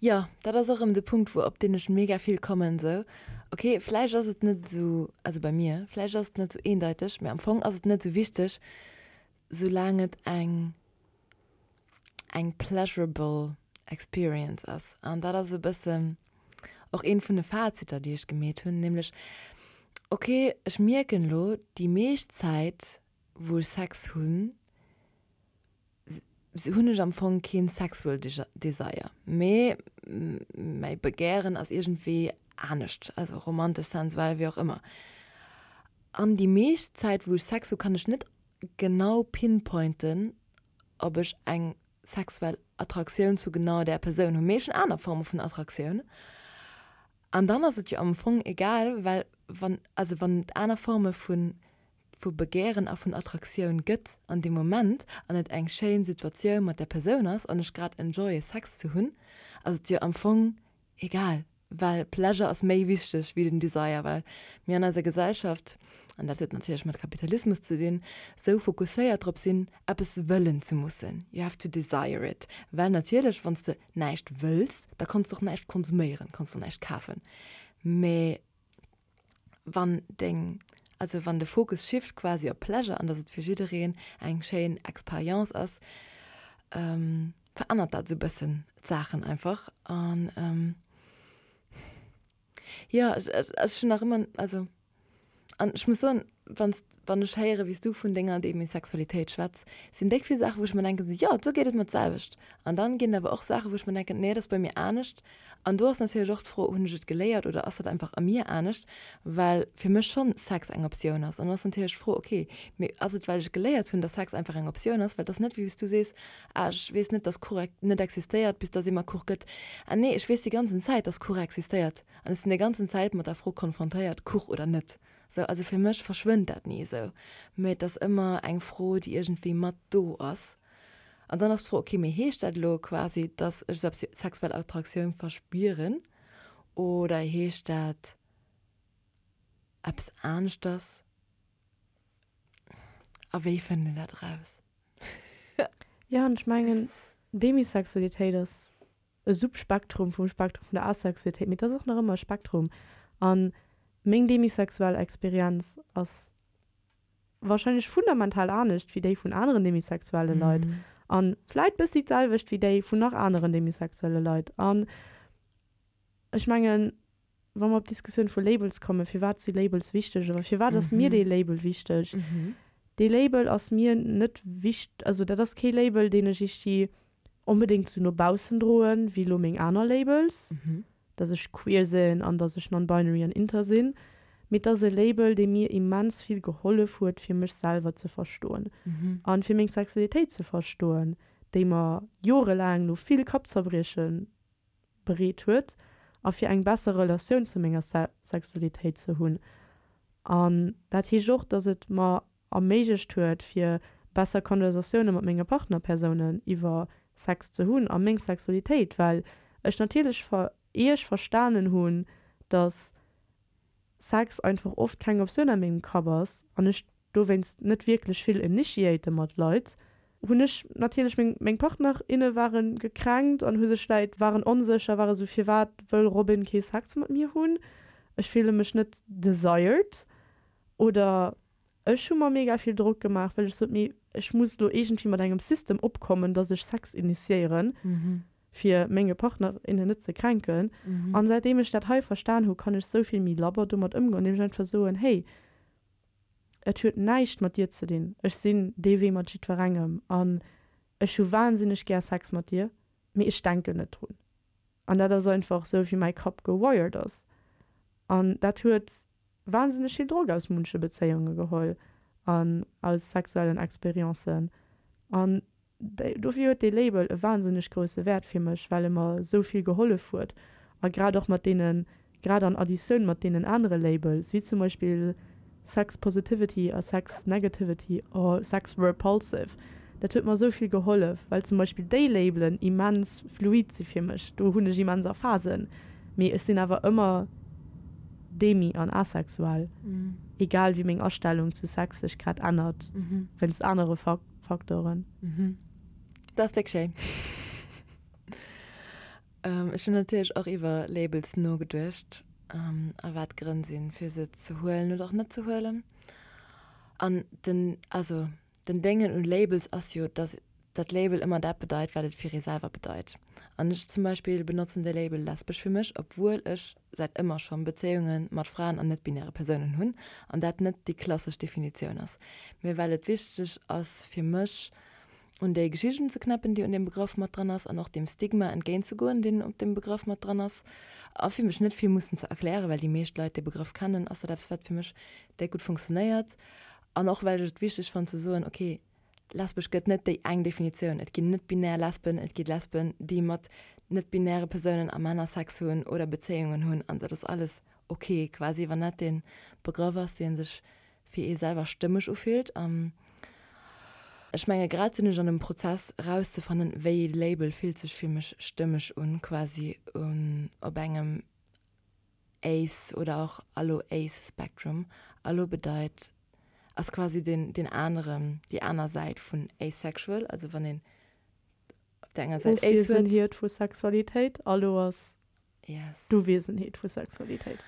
Jo, dat ass och erëm de Punkt, wou op deen ech mega vill kommen, esou, ok, vläicht ass et net esou, also bei mir, vläicht ass et net esou eendeiteg, mee am Fong ass et net esou wichteg, soulaang et eng eng pleasurable experience ass. An dat ass e bëssen och eent vun de Faziter, déi ech gemeet hunn, nämlech, ok, ech mierken elo, déi meescht Zäit wou ech Sex hunn, hunn ech am Fong keen sexual desire, mee mäi Begären ass iergendwéi anescht, also romantesch, sensuell, wéi och ëmmer. An déi meescht Zäit wou ech Sex hu kann ech net genau pinpointen, ob ech eng sexuell Attraktioun zu genau där Persoun hunn, mee ech hunn aner Forme vun Attraktioun. An dann ass et jo am Fong egal, well wann, also wann et aner Forme vun vu Begären a vun Attraktioun gëtt an deem Moment an et eng schéin Situatioun mat där Persoun ass an ech grad enjoye Sex ze hunn, ass et jo am Fong egal, well Pleasure ass méi wichteg wéi den Desire, well mir an eiser Gesellschaft, an dat huet natierlech mat Kapitalismus ze dinn, sou fokusséiert drop sinn, eppes wëllen ze mussen, you have to desire it, well natierlech wann s de näischt wëlls, da kanns de och näischt konsuméieren, kanns de och näischt kafen, mee wann deng, also wann de Fokus shift quasi op Pleasure an dass et fir jiddereen eng schéin Experience ass, verännert dat esou bëssen d'Saachen einfach an. Jo, ech, ech, ech hunn nach ëmmer, also an ech muss soen, wann s, wann ech héiere wéi s du vun denger Demisexualitéit schwätz, sinn déck vill Saachen, wou ech mer denken, sou, jo, do geet et mer d'selwecht. An dann ginn et awer och Saachen, wou ech mer denken, nee, dat ass bei mir anescht. An do ass natierlech och d'Fro, hunn ech et geléiert oder ass dat einfach a mir anescht, well fir mech schonn Sex eng Optioun ass. An dann ass natierlech d'Fro, okay, mee ass et well ech geléiert hunn, dass Sex einfach eng Optioun ass, well et ass net wéi s du sees, ah ech weess net, dass Kuch net existéiert, bis dass ee mer Kuch gëtt. Ah nee, ech weess déi ganzen Zäit, dass Kuch existéiert an ech sinn déi ganzen Zäit mat der Fro konfrontéiert, Kuch oder net. Sou, also fir mech verschwënnt dat ni esou, mee et ass ëmmer eng Fro, déi iergendwéi mat do ass. An dann ass d'Fro, okay, mee heescht dat elo quasi, dass ech sexuell Attraktioun verspieren oder heescht dat eppes aneschters? A wéi fënnt een dat eraus? Jo, an ech mengen, Demisexualitéit ass e Subspektrum vum Spektrum vun der Asexualitéit, mee et ass och nach ëmmer e Spektrum. A meng demisexuell Experienz ass wahrscheinlech fundamental anescht wéi déi vun aneren demisexuelle Leit an vläit bëssi d'selwecht wéi déi vun nach aneren demisexuelle Leit. An ech mengen, wa mer op d'Diskussioun vu Labels kommen, firwat si Labels wichteg oder firwat ass mir dee Label wichteg? Dee Label ass mir net wicht, also dat ass kee Label, deen ech ichti onbedéngt sou no baussen droen, wéi elo meng aner Labels, dass ech queer sinn an dass ech non-binary an inter sinn, mee et ass e Label, dee mir immens vill gehollef huet, fir mech selwer ze verstoen an fir meng Sexualitéit ze verstoen, déi mer jorelaang no vill Kappzerbrieche bereet huet a fir eng besser Relatioun zu menger Sexualitéit ze hunn. An dat heescht och, dass et mer erméiglecht huet, fir besser Konversatioune mat menge Partnerpersounen iwwer Sex ze hunn a meng Sexualitéit, well ech natierlech ier ech verstanen hunn, dass Sex einfach oft keng Optioun a mengem Kapp ass an ech dowéinst net wierklech vill initiate mat Leit, hunn ech natierlech meng meng Partner, inne ware gekränkt an hu sech vläit waren onsécher, ware sou firwat wëll Robin kee Sex mat mir hunn, ech fille mech net desired oder ech hu mer mega vill Drock gemaach, well ech sot, mee ech muss elo iergendwéi mat engem System opkommen, dass ech Sex initiéieren, fir menge Partner, innen net ze kränken. An säitdeem ech dat hei verstan hu, kann ech sou vill méi labber domat ëmgoen, andeem ech einfach soen, hey, et huet näischt mat dir ze dinn, ech sinn dee Wee mat jiddwerengem an ech hu wahnsinneg gär Sex mat dir, mee ech denken net drun. An dat ass einfach sou, wéi mäi Kapp gewired ass. An dat huet wahnsinneg vill Drock aus munche Bezéiunge geholl an aus sexuellen Experiencen. An dofir huet dee Label e wahnsinneg grousse Wäert fir mech, well e mer esou vill gehollef huet. A grad och mat deenen, grad an Additioun mat deenen anere Labels, wéi zum Beispill Sex Positivity a Sex Negativity or Sex Repulsive, dat huet mer esou vill gehollef, well zum Beispill déi Labelen immens fluid si fir mech. Do hunn ech immens a Phasen. Mee ech sinn awer ëmmer demi an asexuell, egal wéi meng Astellung zu Sex sech grad ännert wéinst anere Faktoren. Dat ass déck schéin. Ech hunn natierlech och iwwer Labels nogeduecht a wat d'Grënn sinn, fir se ze huelen oder och net ze huelen. An den, also den Déngen un Labels ass jo, dass dat Label ëmmer dat bedeit, wat et fir ee selwer bedeit. An ech zum Beispill benotzen de Label lesbesch fir mech, obwuel ech säit ëmmer schonn Bezéiunge mat Fraen an net-binäre Persounen hunn an dat net déi klassesch Definitioun ass, mee well et wichteg ass fir mech, un déi Geschicht unzeknäppen, déi un deem Begrëff mat dran ass an och deem Stigma entgéintzegoen, deen op deem Begrëff mat dran ass. A fir mech net vill mussen ze erklären, well déi meescht Leit dee Begrëff kennen, ass dat eppes, wat fir mech déck gutt funktionéiert. An och well ech et wichteg fannen ze soen, okay, Lesbesch gëtt net déi eng Definitioun. Et ginn net-binär Lesben, et gi Lesben, déi mat net-binäre Persounen a Männer Sex hunn oder Bezéiungen hunn an dat ass alles ok quasi, wann dat dee Begrëff ass, dee sech fir ee selwer stëmmeg ufillt. An ech menge grad sinn ech an dem Prozess erauszefannen, wéi ee Label fillt sech fir mech stëmmeg un, quasi un op engem Ace oder och Allo Ace Spectrum. Allo bedeit, ass quasi den, den aneren, déi aner Säit vun asexual, also wann een op der enger Säit Ace huet. Ofwiesenheet vu Sexualitéit, Allo ass yes. d'Uwiesenheet vu Sexualitéit.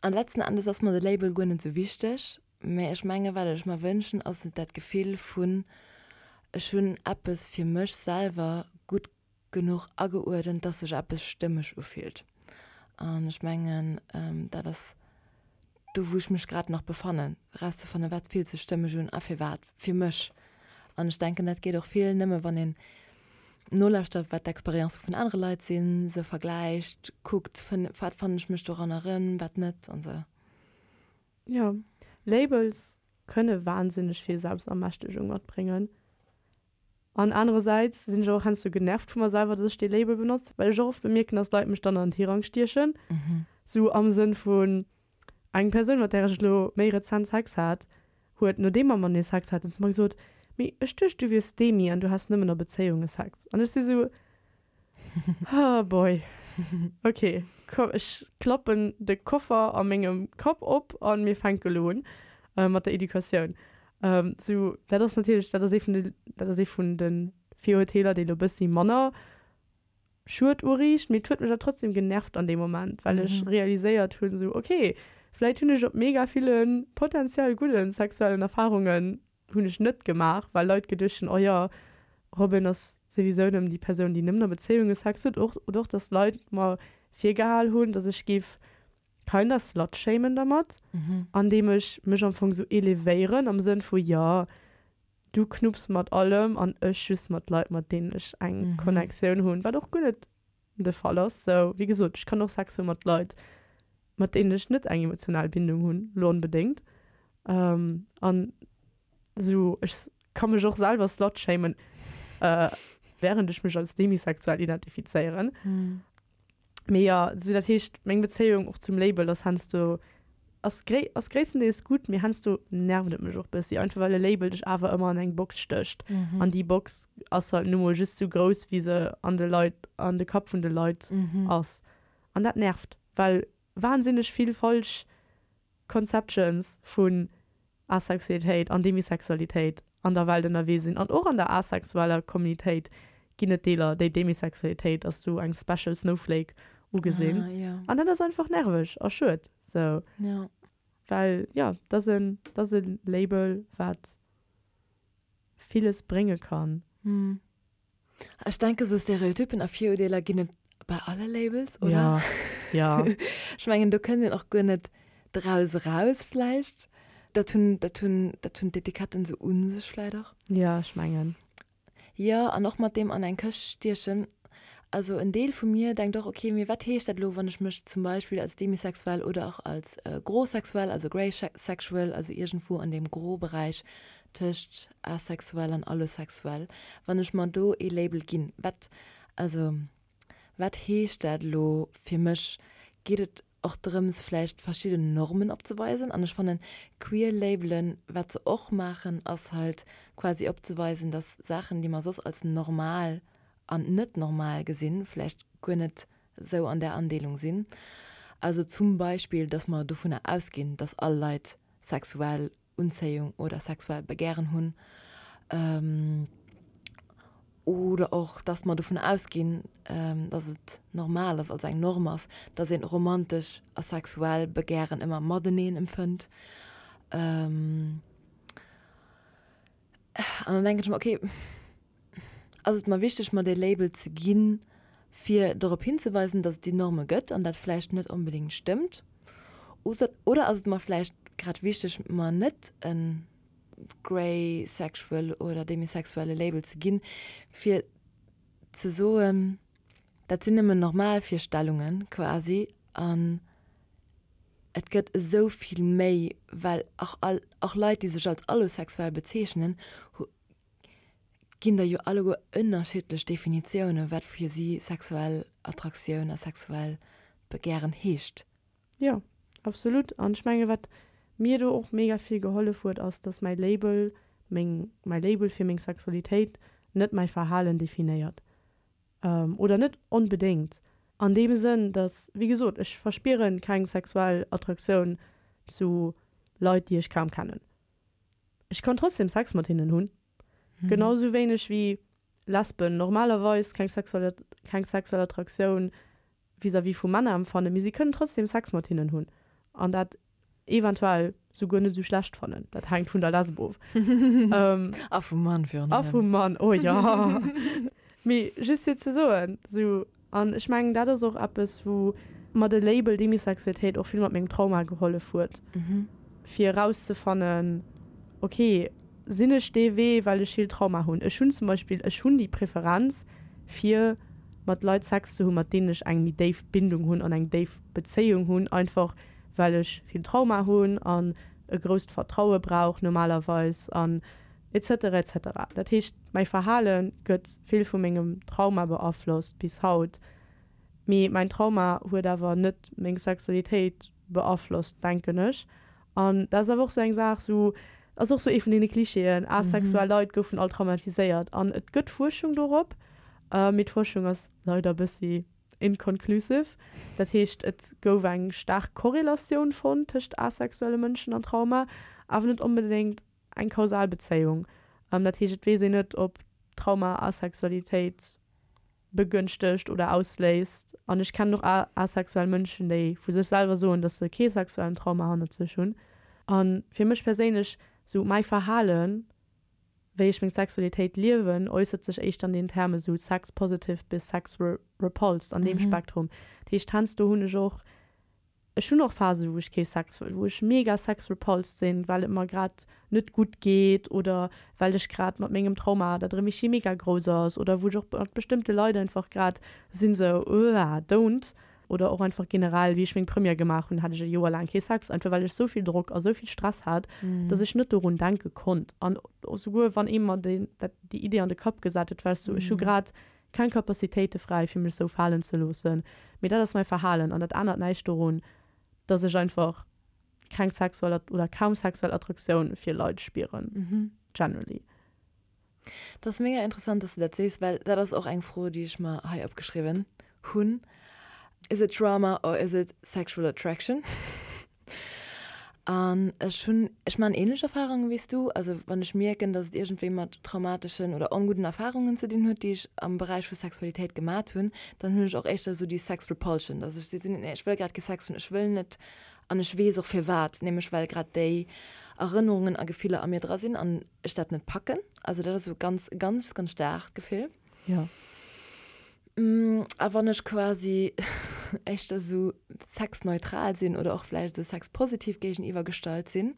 An letzten Endes ass mer de Label guer net sou wichteg, mä ech menge wat ech mer wënschen ass dat Gefill vun ech hunn eppes fir mech selwer gutt genuch ageuerdent, dass sech eppes stëmmeg ufillt. An ech mengen, dat ass do, wou ech mech grad nach befannen, erauszefannen, wat fillt sech stëmmeg un a firwat fir mech. An ech denken, dat geet och vill nëmme, wann een nolauschtert, wat d'Experienze vun anere Leit sinn, se vergläicht, kuckt, wat fannen ech mech doranner erëm, wat net an esou. Jo, Labels kënne wahnsinneg vill Selbstermächtegung matbréngen. An anerersäits sinn ech och heiansdo genervt vu mer selwer, dass ech dee Label benotzt, well ech och oft bemierken, dass Leit mech dann an den Tirang stiechen. Sou am Sënn vun, eng Persoun, mat där ech elo méi rezent Sex hat, huet, nodeem mer matenee Sex haten, zu mer gesot, Mee ech duecht, du wiers Demi an du häss nëmmen a Bezéiunge Sex. An ech si sou, Oh boy, ok, komm ech klappen de Koffer a mengem Kapp op a mir fänke lo un mat der Educatioun. Sou, dat ass natierlech, dat ass ee vun de, dat ass ee vun de Virurteeler, déi lo bëssi manner Schued uriicht, mee et huet mech awer trotzdem genervt an deem Moment, well ech realiséiert hunn, sou ok, vläit hunn ech op mega ville potentiell gudde sexuellen Erfarungen hunn ech net gemaach, well Leit geduecht hunn, oh jo, Robin ass souwisou nëmmen déi Persoun, déi nëmmen a Bezéiunge Sex huet. Och, oder och, dass Leit mer virgehal hunn, dass ech géif kinda slutshamen dermat, andeem ech mech am Fong sou elevéieren am Sënn vu, jo, du knupps mat allem an ech just mat Leit, mat deenen ech eng Connectioun hunn, wat och guer net de Fall ass. Sou, wéi gesot, ech kann och Sex hu mat Leit, mat deenen ech net eng emotional Bindung hunn, lo onbedéngt. An sou, ech ka mech och selwer slutshamen, wärend ech mech als demisexuell identifizéieren. Mee jo, sou dat heescht, meng Bezéiung och zum Label ass heiansdo, ass gréi, ass gréisstendeels gutt, mee heiansdo nervt et mech och bëssi, einfach well e Label dech awer ëmmer an eng Box stécht. An déi Box ass halt nu mol just sou grouss, wéi se an de Leit, an de Kapp vun de Leit ass. An dat nervt, well wahnsinneg vill falsch Conceptions vun Asexualitéit an Demisexualitéit an der Welt ënnerwee sinn. An och an der asexueller Communitéit ginn et Deeler, déi Demisexualitéit als sou eng special snowflake ugesinn. Ah, ja. An dat ass einfach nerveg a schued. Sou. Ja. Well, jo, dat ass en, dat ass e Label, wat villes brénge kann. Hm. Ech denke sou Stereotypen a Virurdeeler ginn et bei alle Labels, oder? Ja, ja. Ech mengen do kënnt een och guer net draus eraus vläicht. Dat hunn, dat hunn, dat hunn d'Etiketten sou u sech vläicht och. Ja, ech mengen. Jo, an och mat deem an eng Këscht stiechen. Also en Deel vu mir denkt och, okay, mee wat heescht dat elo, wann ech mech zum Beispill als demisexuell oder och als grosexuell, also greysexual, also iergendwou an deem Gros-Beräich tëscht asexuell an allosexuell, wann ech mer do ee Label ginn, wat, also wat heescht dat elo fir mech? Geet et och drëms vläicht verschidden Normen opzeweisen? An ech fannen queer Labelen, wat se och maachen, ass halt quasi opzeweisen, dass Saachen, déi mer soss als normal an net normal gesinn, vläicht guer net esou an där Andeelung sinn. Also zum Beispill, dass mer dovunner ausginn, dass all Leit sexuell Unzéiung oder sexuell Begären hunn, oder och dass mer dovun ausginn, dass et normal ass, also eng Norm ass, dass een romantesch a sexuell Begären ëmmer mateneen empfënnt. An dann denken ech mer, okay, ass et mer wichteg, mer dee Label ze ginn, fir dorop hinzeweisen, dass et déi Norme gëtt an dat vläicht net onbedéngt stëmmt? Oder ass et mer vläicht grad wichteg, mer net e greysexual oder demisexuelle Label ze ginn, fir ze soen, dat sinn nëmmen normal Virstellunge quasi an et gëtt esou vill méi, well och all, och Leit, déi sech als allosexuell bezeechnen, ginn der jo alleguer ënnerschiddlech Definitiounen, wat fir si sexuell Attraktioun a sexuell Begären heescht. Jo, absolut. An ech menge wat mir do och mega vill gehollef huet, ass, dass mäi Label, meng, mäi Label fir meng Sexualitéit net mäi Verhalen definéiert. Oder net onbedéngt. An deem Sënn, dass, wéi gesot, ech verspiere keng sexuell Attraktioun zu Leit, déi ech kaum kennen. Ech kann trotzdem Sex mat hinnen hunn. Genau sou wéineg wéi Lesben normalerweis keng sexuell keng sexuell Attraktioun vis-à-vis vu Männer empfannen, mee si kënnen trotzdem Sex mat hinnen hunn an dat eventuell souguer net sou schlecht fannen. Dat hänkt vun der Lesb of. A vum Mann virun allem. A vum Mann, oh jo. Mee just fir ze soen, sou, an ech mengen dat ass och eppes wou. mer de Label Demisexualitéit och vill mat mengem Trauma gehollef huet, fir erauszefannen, ok, sinn ech dee Wee, well ech vill Trauma hunn. Ech hunn zum Beispill, ech hunn déi Preferenz, fir mat Leit Sex ze hunn, mat deenen ech eng méi déif Bindung hunn an eng déif Bezéiung hunn, einfach well ech vill Trauma hunn an e grousst Vertraue brauch normalerweis an et cetera, et cetera. Dat heescht, mäi Verhale gëtt vill vu mengem Trauma beaflosst bis haut. Mee mäin Trauma huet awer net meng Sexualitéit beaflosst, denken ech. An dat ass awer och sou eng Saach, sou ass och sou ee vun deene Klischeeën, asexuell Leit goufen all traumatiséiert. An et gëtt Fuerschung dorop, mee d'Fuerschung ass leider e bëssi inconclusive. Dat heescht, et gouf eng staark Korrelatioun fonnt tëscht asexuelle Mënschen an Trauma, awer net onbedéngt eng kausal Bezéiung. Dat heescht, et weess een net, ob Trauma Asexualitéit begënschtegt oder ausléist. An ech kennen och asexuell Mënschen, déi vu sech selwer soen, dass se kee sexuellen Trauma hannert sech hunn. A fir mech perséinlech, sou mäi Verhalen, wéi ech meng Sexualitéit liewen, äussert sech éischter an den Terme sou sex positive bis sex repulsed, an deem Spektrum. Dat heescht, heiansdo hunn ech och Ech hunn och Phasen, wou ech kee Sex wëll, wou ech mega sex-repulsed sinn, well et mer grad net gutt geet oder well ech grad mat mengem Trauma, dat erëm ischi mega grouss ass oder wou ech och mat bestëmmte Leit einfach grad sinn sou, Uah, don't. Oder och einfach generell, wéi ech meng Première gemaach hunn, hat ech e Joer laang kee Sex, einfach well ech sou vill Drock a sou vill Stress hat, dass ech net dorun denke konnt. An souguer wann ee mer déi Idee an de Kapp gesat huet, war ech sou, ech hu grad Keng Capacitéite fräi fir mech sou falen ze loossen, mee dat ass mäi Verhalen an dat ännert näischt dorun, dass ech einfach keng sexuell oder kaum sexuell Attraktioun fir Leit spieren, generally. Dat ass mega interessant, dass du dat sees, well dat ass och eng Fro, déi ech mer hei opgeschriwwen hunn, Is it trauma or is it sexual attraction? An ech hunn, ech maachen ähnlech Erfahrungen wéi s du. Also wann ech mierken, dass et iergendwéi mat traumateschen oder ongudden Erfahrungen ze dinn huet, déi ech am Beräich vu Sexualitéit gemat hunn, dann hunn ech och éischter esou déi Sex Repulsion, dass ech sinn, nee ech wëll grad kee Sex hunn, ech wëll net an ech weess och firwat, nämlech well grad déi Erënnerungen a Gefiller a mir dra sinn an ech dat net packen. Also dat ass esou ganz, ganz, ganz staarkt Gefill. Jo. A wann ech quasi éischter esou sexneutral sinn oder och vläicht esou sexpositiv géigeniwwer gestallt sinn,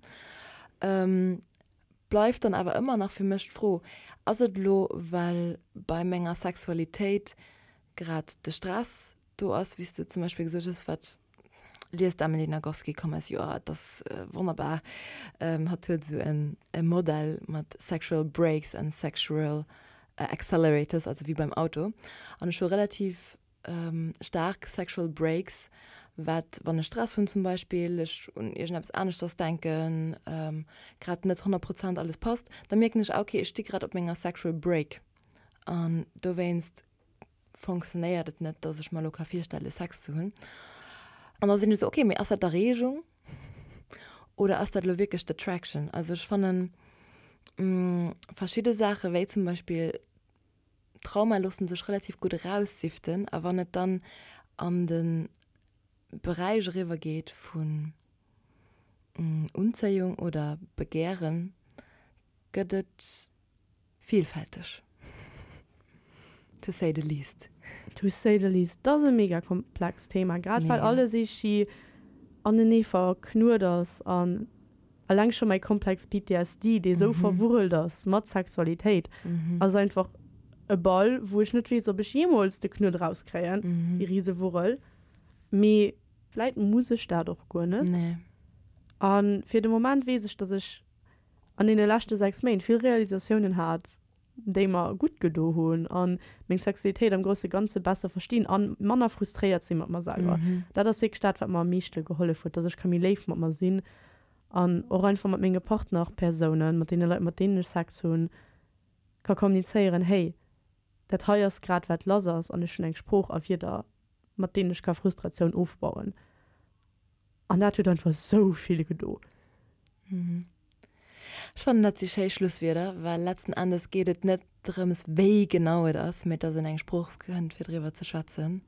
bleift dann awer ëmmer nach fir mech d'Fro, Ass et elo, well bei menger Sexualitéit grad de Stress do ass, wéi s du zum Beispill gesot hues, wat liest d'Emily Nagoski, komm eis Joer, et ass wonnerbar, hatt huet esou e Modell mat sexual brakes and sexual accelerators, also wéi beim Auto. An ech hu relativ staark sexual brakes, wat, wann ech Stress hunn zum Beispill, ech un iergendeppes aneschters denken, grad net 100 Prozent alles passt, da mierken ech, ah okay, ech sti grad op menger sexual brake an dowéinst fonctionnéiert et net, dass ech mer elo ka virstelle Sex ze hunn. An da sinn ech esou, okay, mee ass dat d'Erreegung oder ass dat elo wierklech d'Attraction? Also ech fannen verschidde Saache wéi zum Beispill Trauma loosse sech relativ gutt eraussiften a wann et dann an de Beräich eriwwer geet vun Unzéiung oder Begären, gëtt et Vielfälteg. To say the least. To say the least. Dat ass e mega komplext Thema, grad well alles eeschi anenee verknuet ass an eleng scho mäi Komplex PTSD, dee sou verwurrelt ass mat Sexualitéit, ass einfach e Ball, wou ech net weess, ob ech jeemools de Knuet erauskréien, déi Risewurrel. Mee vläit muss ech dat och guer net. A fir de Moment weess ech, dass ech an deene leschte 6 Méint vill Realisatiounen hat, déi mer gutt gedo hunn a meng Sexualitéit am grousse Ganze besser verstinn a manner frustréiert si mat mer selwer. Dat ass wierklech dat, wat mer am meeschte gehollef huet, dass ech ka méi léif mat mer sinn an och einfach mat menge Partnerpersounen, mat deene Leit, mat deenen ech Sex hunn, ka kommunizéieren, Hey, dat hei ass grad wat lass ass an ech hunn eng Sprooch a Wierder, mat deenen ech ka Frustratioun ofbauen. An dat huet einfach sou vill gedo. Ech fannen, dat si schéi Schlusswierder, well letzten Endes geet et net drëms, wéi genau et ass, mee dass een eng Sprooch fënnt, fir driwwer ze schwätzen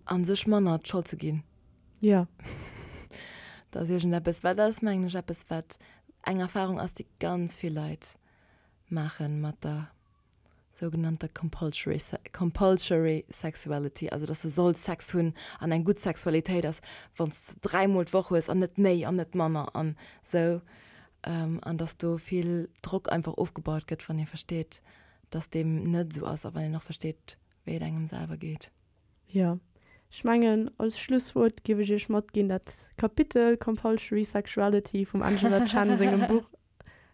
a sech manner d'Schold ze ginn. Jo. Dat ass iergendeppes, well dat ass, mengen ech, eppes, wat eng Erfarung ass, déi ganz vill Leit maache mat der. sougenannter compulsory, compulsory sexuality, also dass de solls Sex hunn an eng gutt Sexualitéit ass, wann s de dräimol d'Woch hues an net méi an net manner an esou, an dass do vill Drock einfach ofgebaut gëtt, wann ee versteet, dass deem net esou ass a wann een och versteet, wéi et engem selwer geet. Jo, ech mengen, als Schlusswuert géif ech Iech matginn, dat Kapitel Compulsory Sexuality vum Angela Chen sengem Buch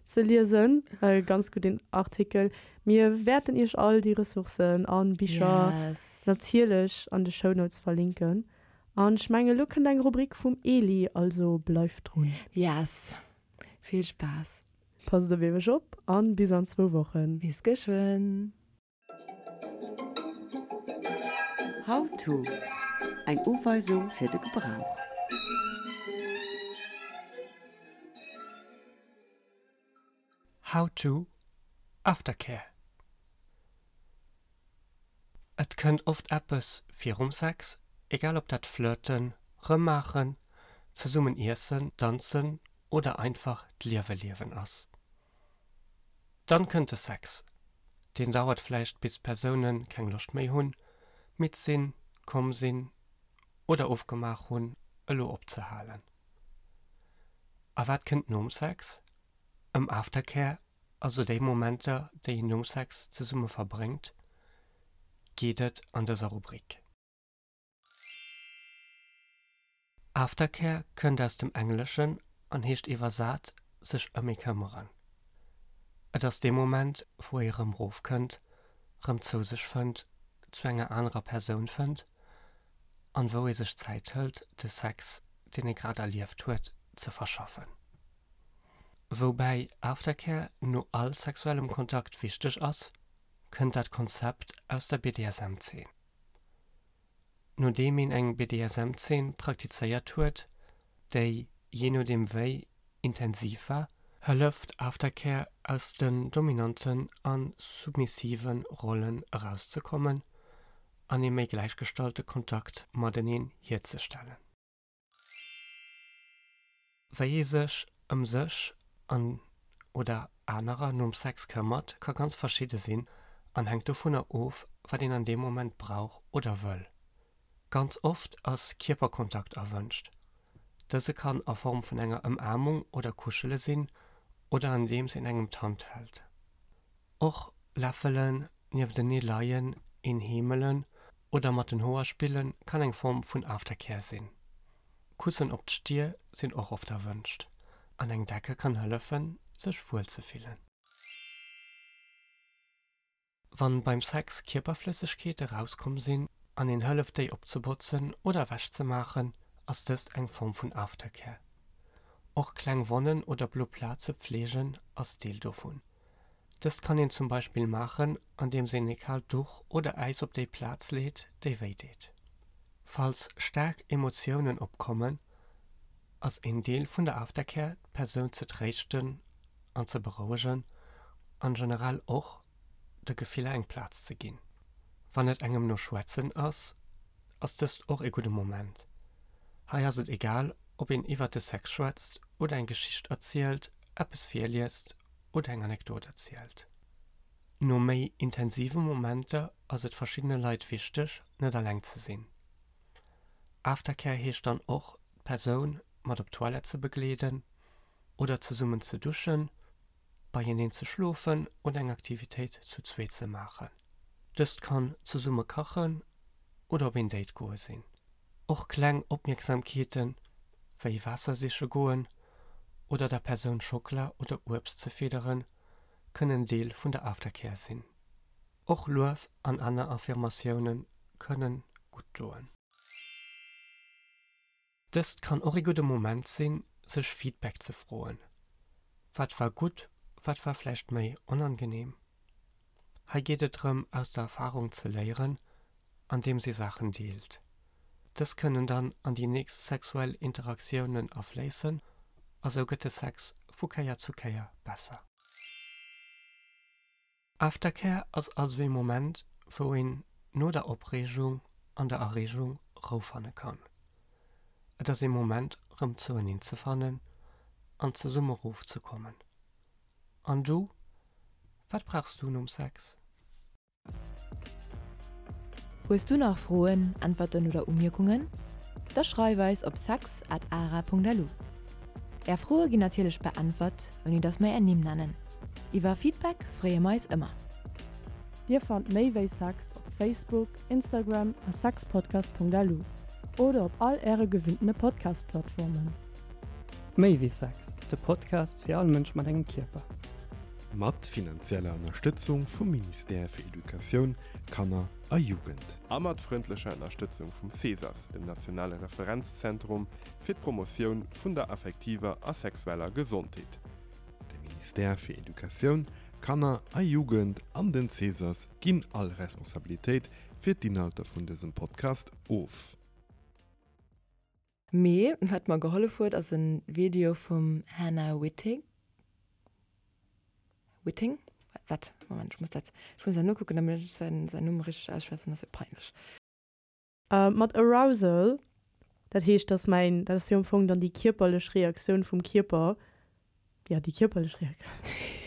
ze liesen. E ganz gudden Artikel. Mir wäerten Iech all déi Ressourcen a Bicher Yes. natierlech an de Shownotes verlinken. An ech mengen, elo kënnt eng Rubrik vum Eli, also bleift drun. Yes. Vill Spaass. Passt op Iech op an bis an zwou Wochen. Bis geschwënn. How to, Eng Uweisung fir de Gebrauch. How to, Aftercare Et kënnt oft eppes virum Sex, egal ob dat Flirten, Rëmmaachen, zesummen iessen, danzen oder einfach d'Liewe liewen ass. Dann kënnt de Sex. Deen dauert vläicht bis d'Persoune keng Loscht méi hunn, midd sinn, komm sinn oder ofgemaach hunn elo opzehalen. A wat kënnt nom Sex? Ëm Aftercare, also déi Momenter déi een nom Sex zesumme verbréngt, geet et an dëser Rubrik. Aftercare kënnt aus dem Engleschen an heescht iwwersat sech ëm ee këmmeren. Et ass dee Moment, wou ee rëm rofkënnt, rëm zou sech fënnt, zu enger anerer Persoun fënnt an wou ee sech Zäit hëlt, de Sex, deen ee grad erlieft huet, ze verschaffen. Woubäi Aftercare no all sexuellem Kontakt wichteg ass, kënnt dat Konzept aus der BDSM-Zeen. Nodeem een eng BDSM-Zeen praktizéiert huet, déi, jee nodeem wéi intensiv war, hëlleft Aftercare aus den dominanten a submissive Rollen erauszekommen an ee méi gläichgestallte Kontakt mateneen hierzestellen. Wéi ee sech ëm sech an oder anerer nom Sex këmmert, ka ganz verschidde sinn an hänkt dovunner of, wat een an deem Moment brauch oder wëll. Ganz oft ass Kierperkontakt erwënscht. Dëse kann a Form vun enger Ëmaarmung oder Kuschele sinn oder andeems een engem d'Hand hält. Och läffelen, nieftenee leien, een heemelen oder mat den Hoer spille kann eng Form vun Aftercare sinn. Kussen op d'Stier sinn och oft erwënscht an eng Decke kann hëllefen, sech wuel ze fillen. Wann beim Sex Kierperflëssegkeete rauskomm sinn an een hëlleft déi opzebotzen oder ewech ze maachen, ass dëst eng Form vun Aftercare. Och kleng Wonnen oder blo Plaze pfleegen ass Deel dovun. Dëst kann een zum Beispill maachen, andeems een e kaalt Duch oder Äis op déi Plaz leet, déi wéi deet. Falls staark Emotiounen opkommen, ass een Deel vun der Aftercare d'Persoun ze tréischten an ze berouegen an generell och de Gefiller eng Plaz ze ginn. Wann et engem no Schwätzen ass, ass dëst och ee gudde Moment. Hei ass et egal, ob een iwwert de Sex schwätzt oder eng Geschicht erzielt, eppes virliest oder eng Anekdot erzielt. No méi intensive Momenter ass et verschiddene Leit wichteg, net alleng ze sinn. Aftercare heescht dann och, d'Persoun mat op d'Toilette ze begleeden oder zesummen ze duschen, beieneen ze schlofen oder eng Aktivitéit zu zweet ze maachen. Dëst kann zesumme kachen oder op een Date goe sinn. Och kleng Opmierksamkeeten, wéi Waasser siche goen oder der Persoun Schockela oder Uebst ze fidderen, kënnen Deel vun der Aftercare sinn. Och Luef an aner Affirmatioune kënne gutt doen. Dëst kann och ee gudde Moment sinn, sech Feedback ze froen. Wat war gutt, wat war vläicht méi onangeneem? Hei geet et drëm, aus der Erfarung ze léieren, andeems ee Saachen deelt. Dës kënnen dann an déi nächst sexuell Interaktiounen afléissen a sou gëtt de Sex vu Kéier zu Kéier besser. Aftercare ass also ee Moment, wou een no der Opreegung an der Erreegung Rou fanne kann. Et ass ee Moment rëm zoueneen ze fannen an zesumme rof ze kommen. An du, wat brauchs du nom Sex? Hues du nach Froen, Äntwerten oder Umierkungen? Da schreif eis op sex at ara.lu. Är Froe ginn natierlech beäntwert, ouni dass mer är Nimm nennen. Iwwer Feedback freeë mer eis ëmmer. Dir fannt méi wéi Sex op Facebook, Instagram a sexpodcast.lu oder op all äre gewinntene Podcast-Plattformen. Méi wéi Sex, de Podcast fir all Mënsch mat engem Kierper. Mat finanzieller Ënnerstëtzung vum Ministère fir Educatioun, Kanner a Jugend. A mat frëndlecher Ënnerstëtzung vum CESAS, dem nationale Referenzzentrum fir d'Promotioun vun der affektiver a sexueller Gesondheet. De Ministère fir Educatioun, Kanner a Jugend an den CESAS ginn all Responsabilitéit fir d'Inhalter vun dësem Podcast of. Mee wat mer gehollef huet ass en Video vum Hannah Wittig, Witting? Wat? Moment, ech muss dat, ech muss dat nokucken, damit ech säin, säin Numm richteg ausschwätzen, ass jo peinlech. Mat Arousal, dat heescht, dass mäin, dat ass jo am Fong dann déi kierperlech Reaktioun vum Kierper, jo, déi kierperlech Reaktioun.